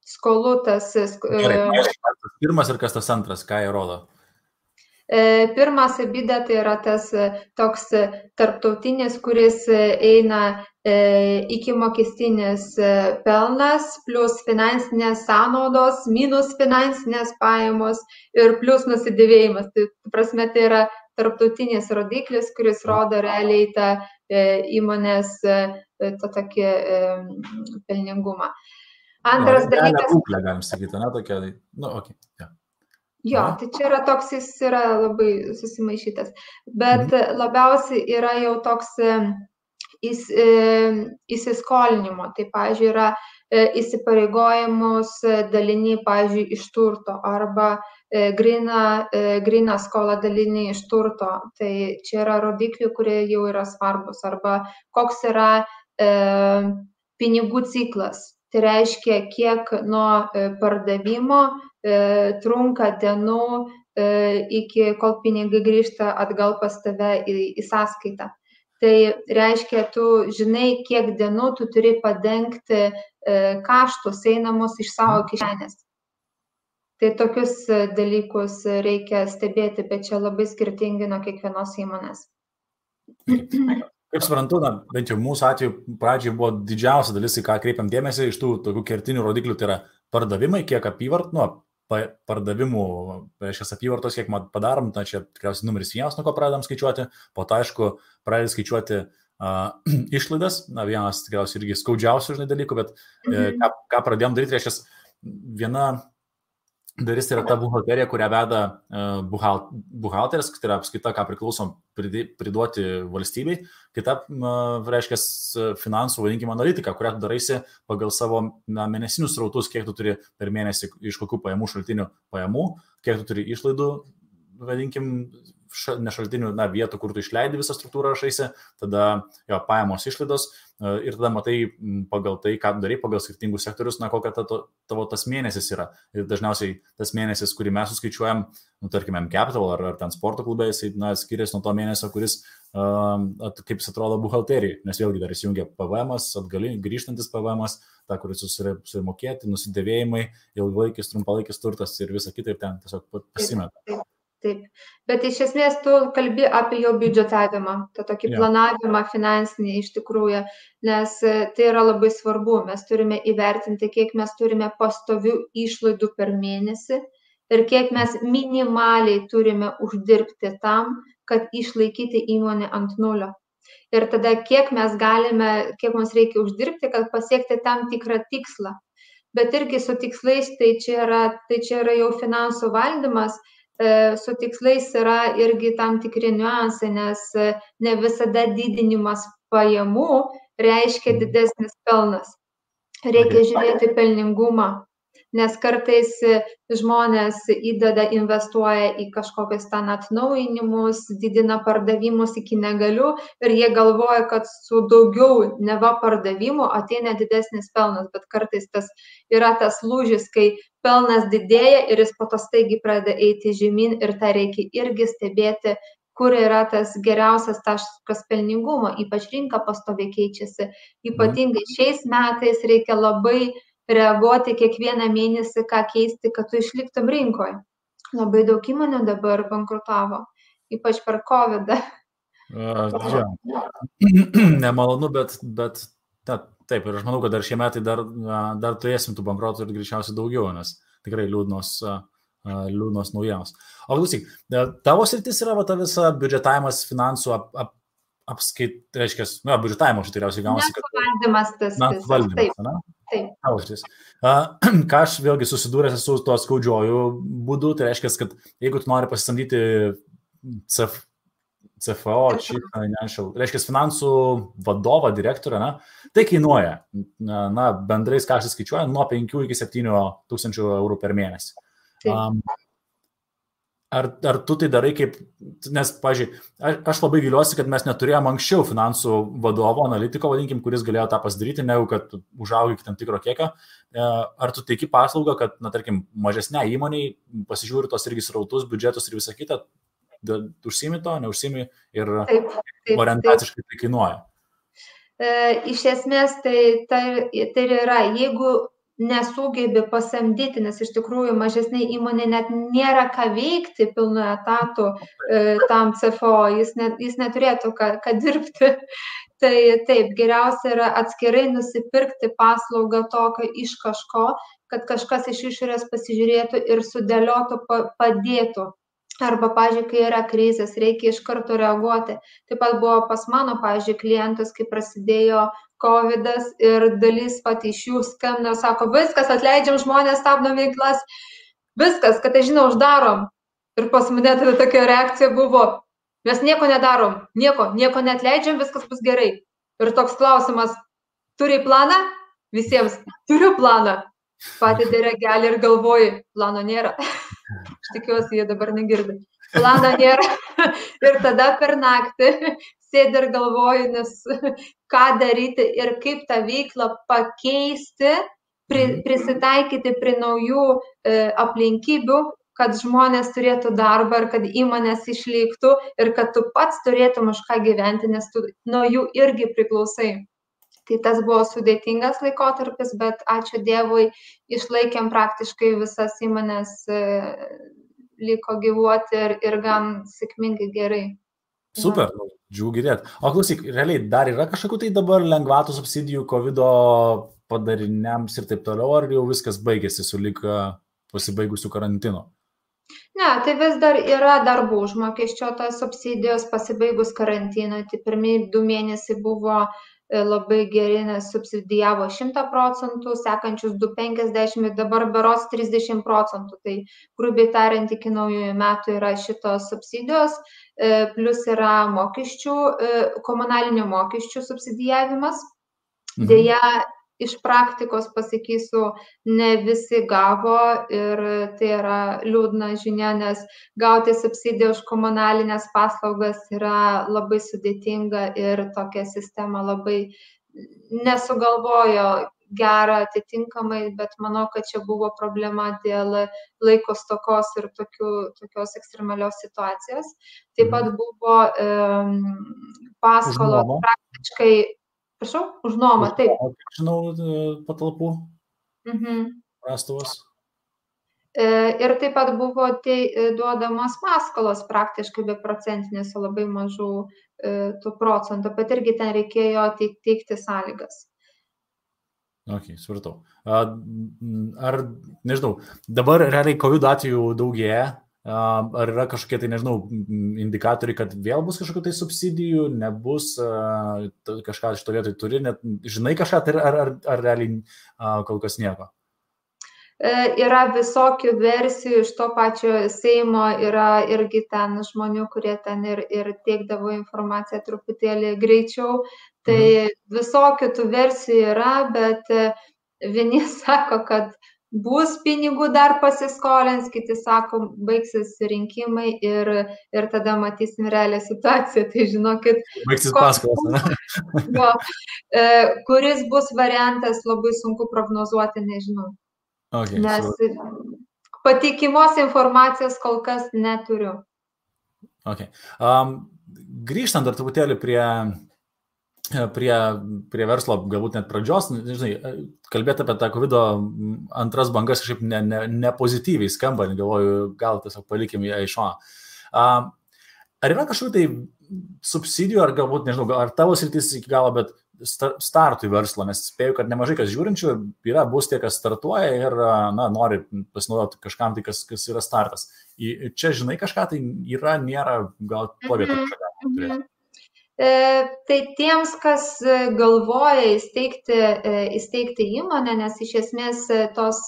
skolų tas. Gerai, kas pirmas ir kas tas antras, ką jie rodo? Pirmas EBITDA tai yra tas toks tarptautinis, kuris eina iki mokestinis pelnas, plus finansinės sąnaudos, minus finansinės pajamos ir plus nusidėvėjimas. Tai prasme, tai yra tarptautinis rodiklis, kuris rodo realiai tą įmonės tokį pelningumą. Antras dalykas. Būklė, galim sakyti, ne, tokia, okay. Yeah. Jo, tai čia yra toks, jis yra labai susimaišytas, bet labiausiai yra jau toks įsiskolinimo, tai, pavyzdžiui, yra įsipareigojimus daliniai, pavyzdžiui, iš turto arba gryna skola daliniai iš turto, tai čia yra rodikliai, kurie jau yra svarbus, arba koks yra pinigų ciklas. Tai reiškia, kiek nuo pardavimo trunka dienų iki kol pinigai grįžta atgal pas tave į sąskaitą. Tai reiškia, tu žinai, kiek dienų tu turi padengti kaštus einamus iš savo kišenės. Tai tokius dalykus reikia stebėti, bet čia labai skirtingi nuo kiekvienos įmonės. Kaip suprantu, bent jau mūsų atveju pradžiai buvo didžiausia dalis, į ką kreipiam dėmesį iš tų tokių kertinių rodiklių, tai yra pardavimai, kiek pardavimų, reiškia apyvartos, kiek padarom, tai čia tikriausiai numeris 1, nuo ko pradedam skaičiuoti, po to, aišku, pradedam skaičiuoti išlaidas, vienas tikriausiai irgi skaudžiausių dalykų, bet ką pradėjom daryti, reiškia, viena dalis tai yra ta buhalterija, kurią veda buhalteris, tai yra apskaita, ką priklausom priduoti valstybei, kita, reiškia, finansų, vadinkime, analitika, kurią tu daraisi pagal savo mėnesinius srautus, kiek tu turi per mėnesį iš kokių pajamų šaltinių pajamų, kiek tu turi išlaidų, vadinkim, ne šaltinių, vietų, kur tu išleidi visą struktūrą rašaisi, tada pajamos išlaidos ir tada matai pagal tai, ką darai, pagal skirtingus sektorius, kokia tavo tas mėnesis yra. Ir dažniausiai tas mėnesis, kurį mes suskaičiuojam, tarkime, M-Capital ar ten sporto klube, jisai skiriasi nuo to mėnesio, kuris, kaip jis atrodo, buhalterijai, nes vėlgi dar įsijungia PVM-as, grįžtantis PVM-as, ta, kuris susimokėti, nusidėvėjimai, ilgalaikis, trumpalaikis turtas ir visa kita ir ten tiesiog pasimeta. Taip, bet iš esmės tu kalbi apie jo biudžetavimą, tą tokį planavimą finansinį iš tikrųjų, nes tai yra labai svarbu, mes turime įvertinti, kiek mes turime pastovių išlaidų per mėnesį ir kiek mes minimaliai turime uždirbti tam, kad išlaikyti įmonę ant nulio. Ir tada kiek mes galime, kiek mums reikia uždirbti, kad pasiekti tam tikrą tikslą. Bet irgi su tikslais, tai čia yra jau finansų valdymas. su tikslais yra irgi tam tikri niuansai, nes ne visada didinimas pajamų reiškia didesnis pelnas. Reikia žiūrėti pelningumą, nes kartais žmonės investuoja į kažkokius ten atnaujinimus, didina pardavimus iki negaliu ir jie galvoja, kad su daugiau neva pardavimų ateina didesnis pelnas, bet kartais yra tas lūžis, kai pelnas didėja ir jis po to staigiai pradeda eiti žemyn ir tą reikia irgi stebėti, kur yra tas geriausias taškas pelningumo, ypač rinka pastoviai keičiasi. Ypatingai šiais metais reikia labai reaguoti kiekvieną mėnesį, ką keisti, kad tu išliktum rinkoje. Labai daug įmonių dabar bankrutavo, ypač per COVID-ą. Nemalonu, bet taip, ir aš manau, kad dar šie metai dar turėsim tų bankrotų ir greičiausiai daugiau, nes tikrai liūdnos naujienos. O klausyk, tavo sritis yra ta visa biudžetavimas, finansų reiškia, biudžetavimo aš tikriausiai gaunasi, kad... Valdymas tas. Valdymas, ne? Taip. Ką aš vėlgi susidūręs su tuo skaudžiuoju būdu, tai reiškia, kad jeigu tu nori pasisamdyti CFO, reiškia, finansų vadovą, direktorą, tai kainuoja, bendrais kaštais skaičiuoja, nuo 5 iki 7 tūkstančių eurų per mėnesį. Ar tu tai darai kaip, nes, pavyzdžiui, aš labai viliuosi, kad mes neturėjom anksčiau finansų vadovo, analitiko, vadinkim, kuris galėjo tą pasidaryti, negu kad užaugi iki tam tikro kiekio. Ar tu teiki paslaugą, kad, tarkim, mažesnė įmoniai pasižiūri tos irgi srautus, biudžetus ir visą kitą, užsimi to, neužsimi ir orientaciškai tai kainuoja? Iš esmės tai yra, jeigu nesugebi pasamdyti, nes iš tikrųjų mažesnė įmonė net nėra ką veikti pilnu etatu tam CFO, jis neturėtų ką dirbti. Tai taip, geriausia yra atskirai nusipirkti paslaugą tokio iš kažko, kad kažkas iš išorės pasižiūrėtų ir sudėliotų, padėtų. Arba, pavyzdžiui, kai yra krizės, reikia iš karto reaguoti. Taip pat buvo pas mano, pavyzdžiui, klientus, kai prasidėjo COVID-as ir dalis iš jų skambino, sako, viskas, atleidžiam žmonės, stabdom veiklas, viskas, kad žinau, uždarom. Ir pas mane tokia reakcija buvo, mes nieko nedarom, nieko neatleidžiam, viskas bus gerai. Ir toks klausimas, turi planą? Visiems, turiu planą. Pati diregelį ir galvoju, plano nėra. Aš tikiuosi, jie dabar negirdi. Plano nėra. Ir tada per naktį sėdi ir galvoju, nes ką daryti ir kaip tą veiklą pakeisti, prisitaikyti prie naujų aplinkybių, kad žmonės turėtų darbą ir kad įmonės išliktų ir kad tu pats turėtum už ką gyventi, nes tu nuo jų irgi priklausai. Tai tas buvo sudėtingas laikotarpis, bet ačiū Dievui, išlaikėm praktiškai visas įmonės, liko gyvuoti ir gan sėkmingai gerai. Super, džiugu girdėti. O klausyk, realiai dar yra kažkokių tai dabar lengvatų subsidijų COVID-o padariniams ir taip toliau, ar jau viskas baigėsi su lyg pasibaigusiu karantinu? Ne, tai vis dar yra darbų užmokesčio tos subsidijos pasibaigus karantinui. Tai pirmieji 2 mėnesiai buvo labai geri, nes subsidijavo 100%, sekančius 2,50 ir dabar berods 30%. Tai grubiai tariant, iki naujųjų metų yra šitos subsidijos, plus yra mokesčių, komunalinių mokesčių subsidijavimas. Deja, iš praktikos pasakysiu, ne visi gavo ir tai yra liūdna žinia, nes gauti subsidiją už komunalinės paslaugas yra labai sudėtinga ir tokia sistema labai nesugalvojo gerą atitinkamai, bet manau, kad čia buvo problema dėl laiko stokos ir tokios ekstremalios situacijos. Taip pat buvo paskolos praktiškai. Prašau, už nuomą, taip. Žinau, patalpų prastovas. Ir taip pat buvo duodamos paskolos praktiškai be procentinės, labai mažų tų procentų, bet irgi ten reikėjo teikti sąlygas. Ok, supratau. Ar, nežinau, dabar realiai COVID atvejų daugėja? Ar yra kažkokie tai, nežinau, indikatoriai, kad vėl bus kažkokių tai subsidijų, nebus, kažką iš to vietoj turi, net žinai kažką, ar realiai kol kas nieko? yra visokių versijų iš to pačio Seimo, yra irgi ten žmonių, kurie ten ir teikdavo informaciją truputėlį greičiau. Tai visokių tų versijų yra, bet vieni sako, kad bus pinigų dar pasiskolins, kiti sako, baigsis rinkimai ir tada matysim realią situaciją. Tai žinokit, baigsis paskolos. Kuris bus variantas, labai sunku prognozuoti, nežinau. Okay, nes patikimos informacijos kol kas neturiu. Okay. Grįžtant dar truputėlį prie verslo, galbūt net pradžios, žinai, kalbėti apie tą COVID antras bangas kažkaip nepozityviai skamba, galvoju, gal tiesiog palikim ją iš šono. Ar yra kažkokių tai subsidijų, ar galbūt, nežinau, ar tavo sritis iki galo, bet startui verslo, nes spėju, kad nemažai kas žiūrinčių bus tie, kas startuoja ir nori pasinaudoti kažkam, tai kas yra startas. Čia, žinai, kažką tai yra, nėra, gal to vietą kažką turėti. Tai tiems, kas galvoja įsteigti įmonę, nes iš esmės tos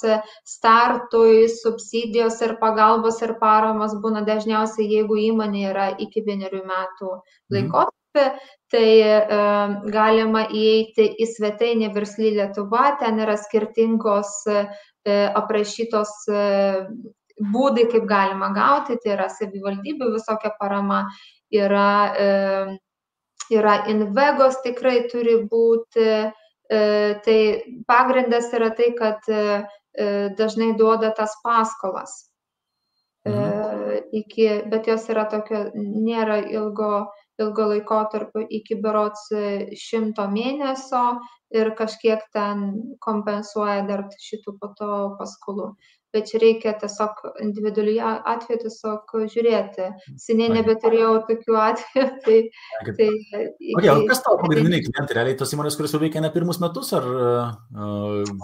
startui subsidijos ir pagalbos ir paramos būna dažniausiai, jeigu įmonė yra iki 1 metų laikotarpį, tai galima įeiti į svetainę Versli Lietuva, ten yra skirtingos aprašytos būdai, kaip galima gauti, tai yra savivaldybių visokia parama, yra Invegos tikrai turi būti, tai pagrindas yra tai, kad dažnai duoda tas paskolas, bet jos yra tokio, nėra ilgo laikotarpio iki berods 100 mėnesio ir kažkiek ten kompensuoja dar šitų po to paskolų. Bet čia reikia tiesiog individualiai atveju tiesiog žiūrėti. Seniai nebeturėjau tokių atvejų. Kas tavo pagrindiniai klientai? Realiai tos įmonės, kurios jau veikia ne pirmus metus?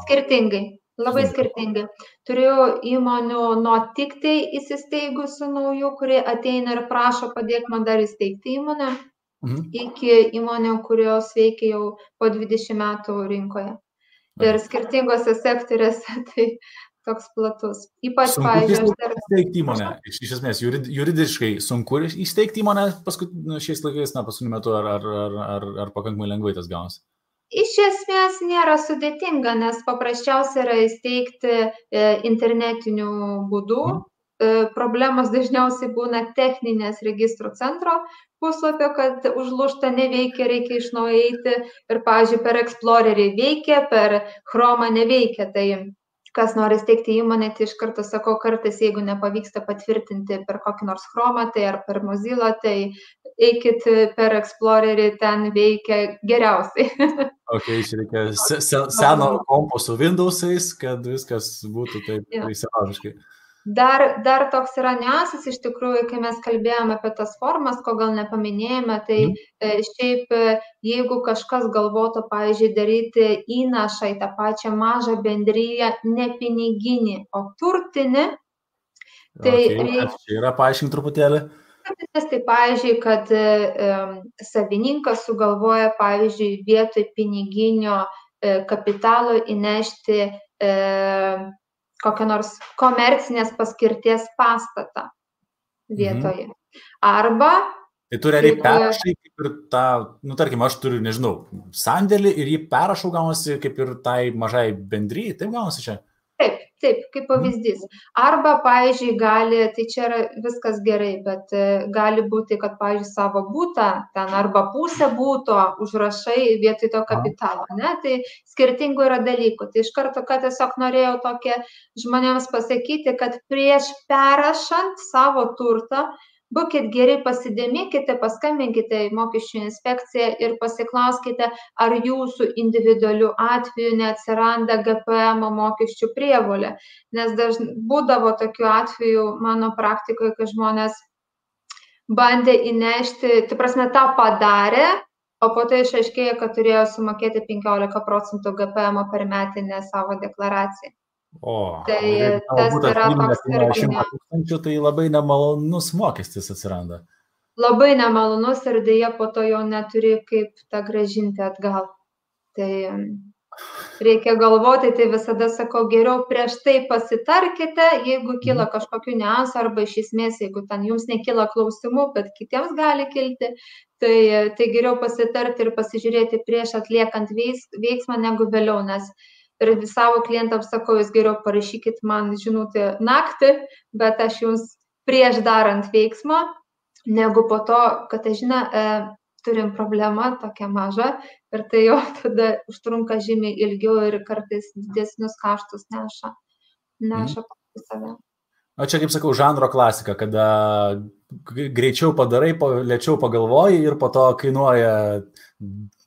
Skirtingai, labai skirtingai. Turiu įmonių nuo tik tai įsisteigusių naujų, kurie ateina ir prašo padėk man dar įsteigti įmonę, iki įmonių, kurios veikia jau po 20 metų rinkoje. Ir skirtingose sektoriuose tai toks platus. Ypač, pavyzdžiui, įsteigti įmonę. Iš esmės, juridiškai sunku įsteigti įmonę šiais laikais, paskutiniu metu, ar pakankamai lengvai tas gaunasi? Iš esmės nėra sudėtinga, nes paprasčiausia yra įsteigti internetiniu būdu. Problemos dažniausiai būna techninės registrų centro puslapio, kad užlūžta neveikia, reikia iš naujo eiti. Ir, pavyzdžiui, per Explorerį veikia, per Chromą neveikia. Tai kas nori steigti įmonę, tai iš karto sakau, kartais, jeigu nepavyksta patvirtinti per kokį nors Chromą, tai ar per Mozilla, tai eikit per Explorerį, ten veikia geriausiai. Čia reikia seno kompo su Windows'ais, kad viskas būtų taip įsilaužiškai. Dar toks yra niuansas, iš tikrųjų, kai mes kalbėjome apie tas formas, ko gal nepaminėjome, tai šiaip jeigu kažkas galvotų, pavyzdžiui, daryti įnašą į tą pačią mažą bendriją, ne piniginį, o turtinį, tai reikia... Čia yra paaiškinti truputėlį. Tai, pavyzdžiui, kad savininkas sugalvoja, pavyzdžiui, vietoj piniginio kapitalo įnešti kokią nors komercinės paskirties pastatą vietoje. Arba... Tai tu realiai perrašai kaip ir tą, tarkim, aš turiu, nežinau, sandėlį ir jį perrašau gaunasi kaip ir tai mažai bendryjai, taip gaunasi čia? Taip, kaip pavyzdys. Arba, pavyzdžiui, tai čia yra viskas gerai, bet gali būti, kad, pavyzdžiui, savo būtą, ten arba pusę būto užrašai vietoj to kapitalo, ne? Tai skirtingų yra dalykų. Tai iš karto, kad tiesiog norėjau tokia žmonėms pasakyti, kad prieš perrašant savo turtą, būkit geri, pasidėmėkite, paskambinkite į mokesčių inspekciją ir pasiklauskite, ar jūsų individualių atveju neatsiranda GPM mokesčių prievolė. Nes būdavo tokių atvejų mano praktikoje, kai žmonės bandė įnešti, tai prasme, tą padarė, o po to išaiškėjo, kad turėjo sumokėti 15% GPM per metinę savo deklaraciją. Tai tas yra toks irgi. Tai labai nemalonus mokestis atsiranda. Labai nemalonus ir dėja po to jau neturi kaip tą grąžinti atgal. Tai reikia galvoti, tai visada sakau, geriau prieš tai pasitarkite, jeigu kyla kažkokių niuansų arba iš esmės, jeigu ten jums nekyla klausimų, bet kitiems gali kilti, tai geriau pasitarti ir pasižiūrėti prieš atliekant veiksmą negu vėliau, nes ir savo klientams sakau, jūs geriau parašykit man žinutę naktį, bet aš jums prieš darant veiksmą, negu po to, kad aš turim problemą tokią mažą ir tai jau tada užtrunka žymiai ilgiau ir kartais didesnius kaštus neša paskui save. O čia, kaip sakau, žanro klasika, kada greičiau padarai, lėčiau pagalvoji ir po to kainuoja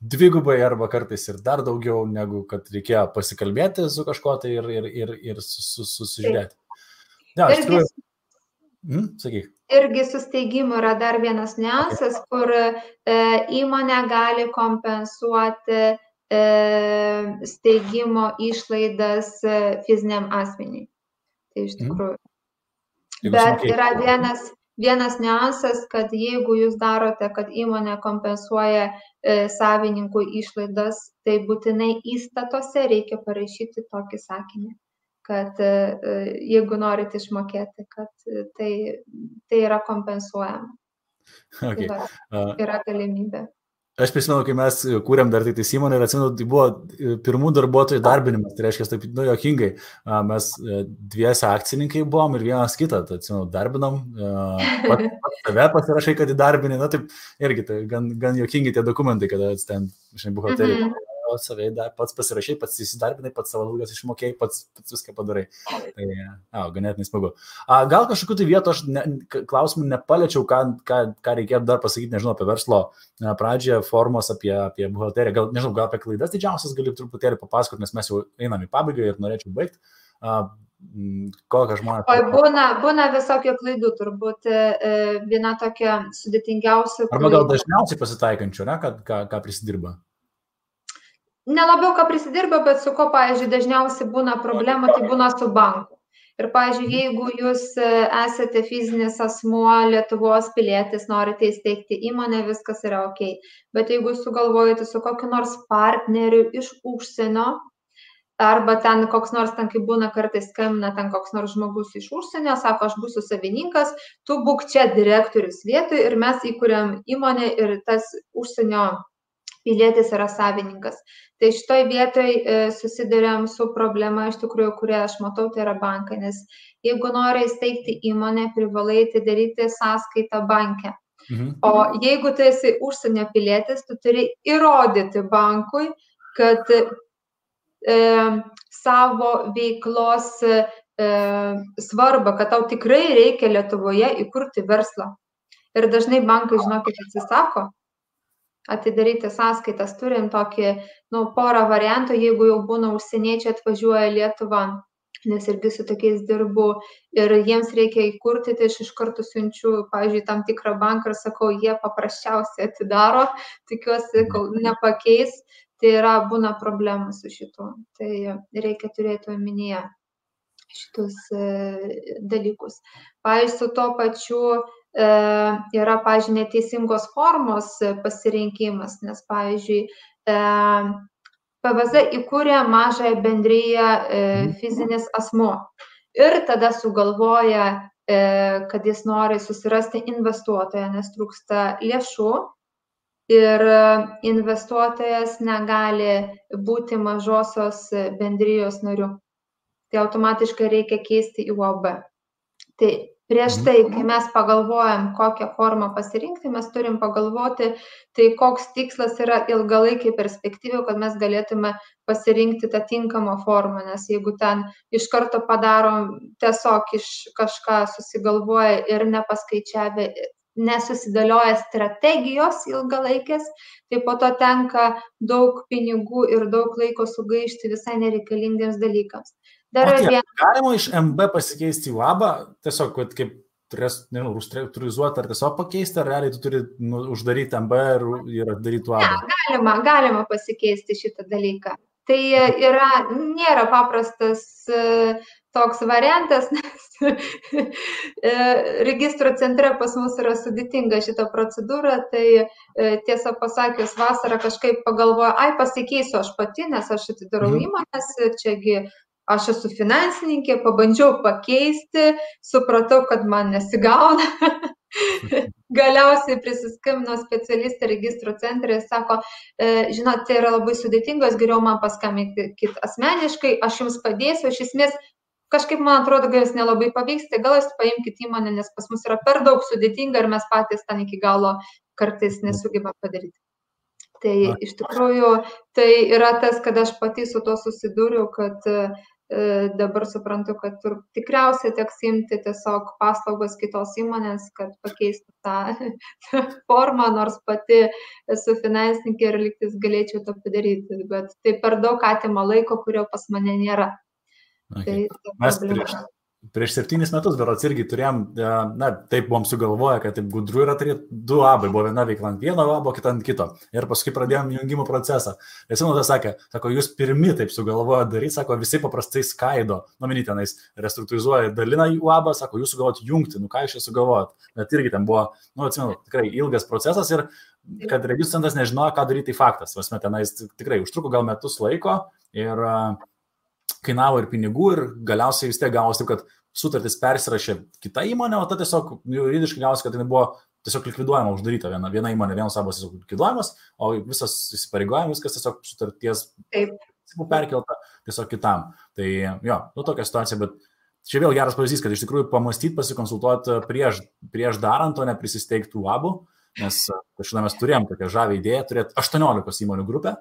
dvigubai arba kartais ir dar daugiau, negu kad reikėjo pasikalbėti su kažkuo tai ir susižiūrėti. Ja, iš tikrųjų. Sakyk. Irgi su steigimu yra dar vienas niuansas, kur įmonė gali kompensuoti steigimo išlaidas fiziniam asmeniui. Tai iš tikrųjų. Bet yra vienas niuansas, kad jeigu jūs darote, kad įmonė kompensuoja savininkų išlaidas, tai būtinai įstatuose reikia parašyti tokį sakinį, kad jeigu norite išmokėti, kad tai yra kompensuojama. Okay. Tai yra galimybė. Aš prisimenu, kai mes kūrėm dar tai įmonę ir atsimenu, tai buvo pirmų darbuotojų darbinimas, tai reiškia, taip, jokingai, mes dviese akcininkai buvom ir vienas kitą, tai atsimenu, darbinom, pats tave pasirašai, kad įdarbini, taip, irgi tai gan jokingi tie dokumentai, kada ten, žinai, buhalteriai. Savai pats pasirašai, pats įsidarbinai, pats savo algas išmokėjai, pats viską padarai. Tai, ganėtinai smagu. Gal kažkokiu tai vietu aš klausimų nepaliečiau, ką reikėtų dar pasakyti, nežinau, apie verslo pradžią, formos apie buhalteriją. Gal, nežinau, gal apie klaidas didžiausias gali truputėlį papasakoti, nes mes jau einam į pabaigą ir norėčiau baigti. Kokią žmonės... Būna visokio klaidų, turbūt viena tokia sudėtingiausia. Arba gal dažniausiai pasitaikančių, ne, ką prisidirba? Nelabiau, ką prisidirba, bet su ko, pavyzdžiui, dažniausiai būna problema, tai būna su banku. Ir, pavyzdžiui, jeigu jūs esate fizinis asmuo, Lietuvos pilietis, norite įsteigti įmonę, viskas yra ok. Bet jeigu sugalvojate su kokiu nors partneriu iš užsienio, arba ten koks nors, ten kaip būna kartais skambina, ten koks nors žmogus iš užsienio, sako, aš būsiu savininkas, tu būk čia direktorius vietoj ir mes įkuriam įmonę ir tas užsienio pilietis yra savininkas. Tai šitoj vietoj susiduriam su problema, iš tikrųjų, kurią aš matau, tai yra bankai, nes jeigu nori įsteigti įmonę, privalai atidaryti sąskaitą banke. O jeigu tu esi užsienio pilietis, tu turi įrodyti bankui, kad savo veiklos svarbą, kad tau tikrai reikia Lietuvoje įkurti verslą. Ir dažnai bankai, žinokit, atsisako atidaryti sąskaitas. Turim tokį, porą variantų, jeigu jau būna užsieniečiai atvažiuoja Lietuvą, nes irgi su tokiais dirbu ir jiems reikia įkurti, tai aš iš karto siunčiu, pavyzdžiui, tam tikrą banką ir sakau, jie paprasčiausiai atidaro, tikiuosi, kol nepakeis, tai būna problemų su šitu. Tai reikia turėti omenyje šitus dalykus. Pavyzdžiui, su to pačiu yra, pavyzdžiui, neteisingos formos pasirinkimas, nes, pavyzdžiui, PVZ įkūrė mažąją bendriją fizinis asmuo ir tada sugalvoja, kad jis nori susirasti investuotoją, nes trūksta lėšų ir investuotojas negali būti mažosios bendrijos nariu. Tai automatiškai reikia keisti į UAB. Tai prieš tai, kai mes pagalvojam, kokią formą pasirinkti, mes turim pagalvoti, tai koks tikslas yra ilgalaikiai perspektyviai, kad mes galėtume pasirinkti tą tinkamą formą, nes jeigu ten iš karto padarom tiesiog iš kažką susigalvoja ir nepaskaičiavę, nesusidėlioja strategijos ilgalaikės, tai po to tenka daug pinigų ir daug laiko sugaišti visai nereikalingiems dalykams. Galima iš MB pasikeisti į UAB, tiesiog kaip restruktūrizuoti ar tiesiog pakeisti, ar realiai tu turi uždaryti MB ir daryti UAB? Galima pasikeisti šitą dalyką. Tai nėra paprastas toks variantas, nes registro centre pas mus yra sudėtinga šita procedūra, tai tiesą pasakius, vasarą kažkaip pagalvoju, pasikeisiu aš pati, nes aš atidarau įmonės, čiagi aš esu finansininkė, pabandžiau pakeisti, supratau, kad man nesigauna. Galiausiai prisiskambino specialistė registro centre ir sako, žinot, tai yra labai sudėtingas, geriau man paskambinti asmeniškai, aš jums padėsiu, iš esmės kažkaip man atrodo, gal jūs nelabai pavyks, tai gal jūs paimkite įmonę, nes pas mus yra per daug sudėtinga ir mes patys ten iki galo kartais nesugebam padaryti. Tai iš tikrųjų tai yra tas, kad aš pati su to susidūriau, kad dabar suprantu, kad tikriausiai teks imti tiesiog paslaugas kitos įmonės, kad pakeistų tą formą, nors pati esu finansininkė ir lygtis galėčiau to padaryti, bet tai per daug atima laiko, kurio pas mane nėra. Okay. Mes prieš 7 metus berods irgi turėjom, taip buvom sugalvoję, kad taip gudru yra turėti 2 abai, buvo viena veikla ant vieno abo, kita ant kito. Ir paskui pradėjom jungimo procesą. Ir Simonas sako, jūs pirmi taip sugalvojo daryti, sako, visi paprastai skaido, tenais restruktūrizuoja, dalina į abą, sako, jūs sugalvojot jungti, ką jūs čia sugalvojot. Bet irgi ten buvo, atsimenu, tikrai ilgas procesas ir kad registrų centras nežinojo, ką daryti, tai faktas. Vasme tenais tikrai užtruko gal metus laiko ir kainavo ir pinigų ir galiausiai vis tiek gavosi taip, kad sutartis persirašė kita įmonė, o ta tiesiog juridiškai gavosi, kad jinai buvo tiesiog likviduojama, uždaryta viena įmonė, vienos abos tiesiog likviduojamas, o visas įsipareigojimas, viskas tiesiog sutarties perkelta tiesiog kitam. Tai jo, tokia situacija, bet čia vėl geras pavyzdys, kad iš tikrųjų pamastyti, pasikonsultuoti prieš darant, o ne prisisteigtų abų, nes kažkada mes turėjom tokią žavę idėją turėti 18 įmonių grupę.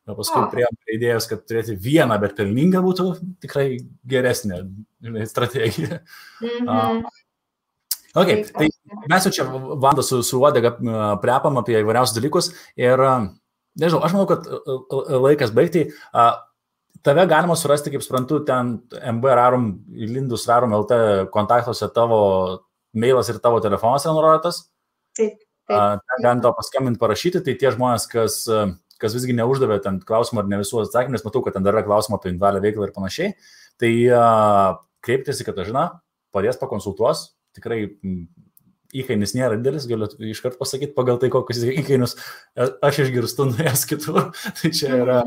O paskui priėjom idėjos, kad turėti vieną, bet pelninga būtų tikrai geresnė strategija. Okay, tai mes jau čia Vanda su Uodega prepam apie įvairiausius dalykus ir, nežinau, aš manau, kad laikas baigti. Tave galima surasti, kaip suprantu, ten MB Rarum, Lindus Rarum LT kontaktuose tavo mailas ir tavo telefonas yra nurodytas. Taip. Ten galim tau paskambinti, parašyti, tai tie žmonės, kas visgi neuždavė ten klausimą ar ne visų atsakymų, nes matau, kad ten dar yra klausimą apie individualią veiklą ir panašiai, tai kreiptis į Katažiną, padės pakonsultuos, tikrai įkainis nėra didelis, galiu iškart pasakyti, pagal tai, kokius įkainius aš išgirstu nuėjęs kitur, tai čia yra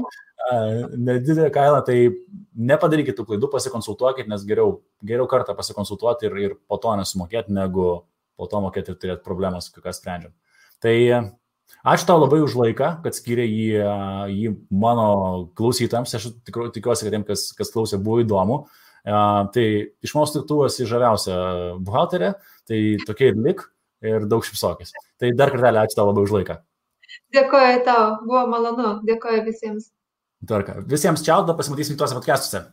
nedidelė kaina, tai nepadarykit tų klaidų, pasikonsultuokit, nes geriau kartą pasikonsultuoti ir po to nesumokėti, negu po to mokėti ir turėti problemas, kokias sprendžiam. Tai ačiū tau labai už laiką, kad skyrė jį mano klausytojams. Aš tikiuosi, kad tiem, kas klausė, buvo įdomu. Tai iš mūsų tu esi žaviausia buhalterė, tai tokia ir lik ir daug šipsokės. Tai dar kartelį ačiū tau labai už laiką. Dėkoju tau, buvo malonu, dėkoju visiems. Visiems čiau, pasimatysim tuose podcastuose.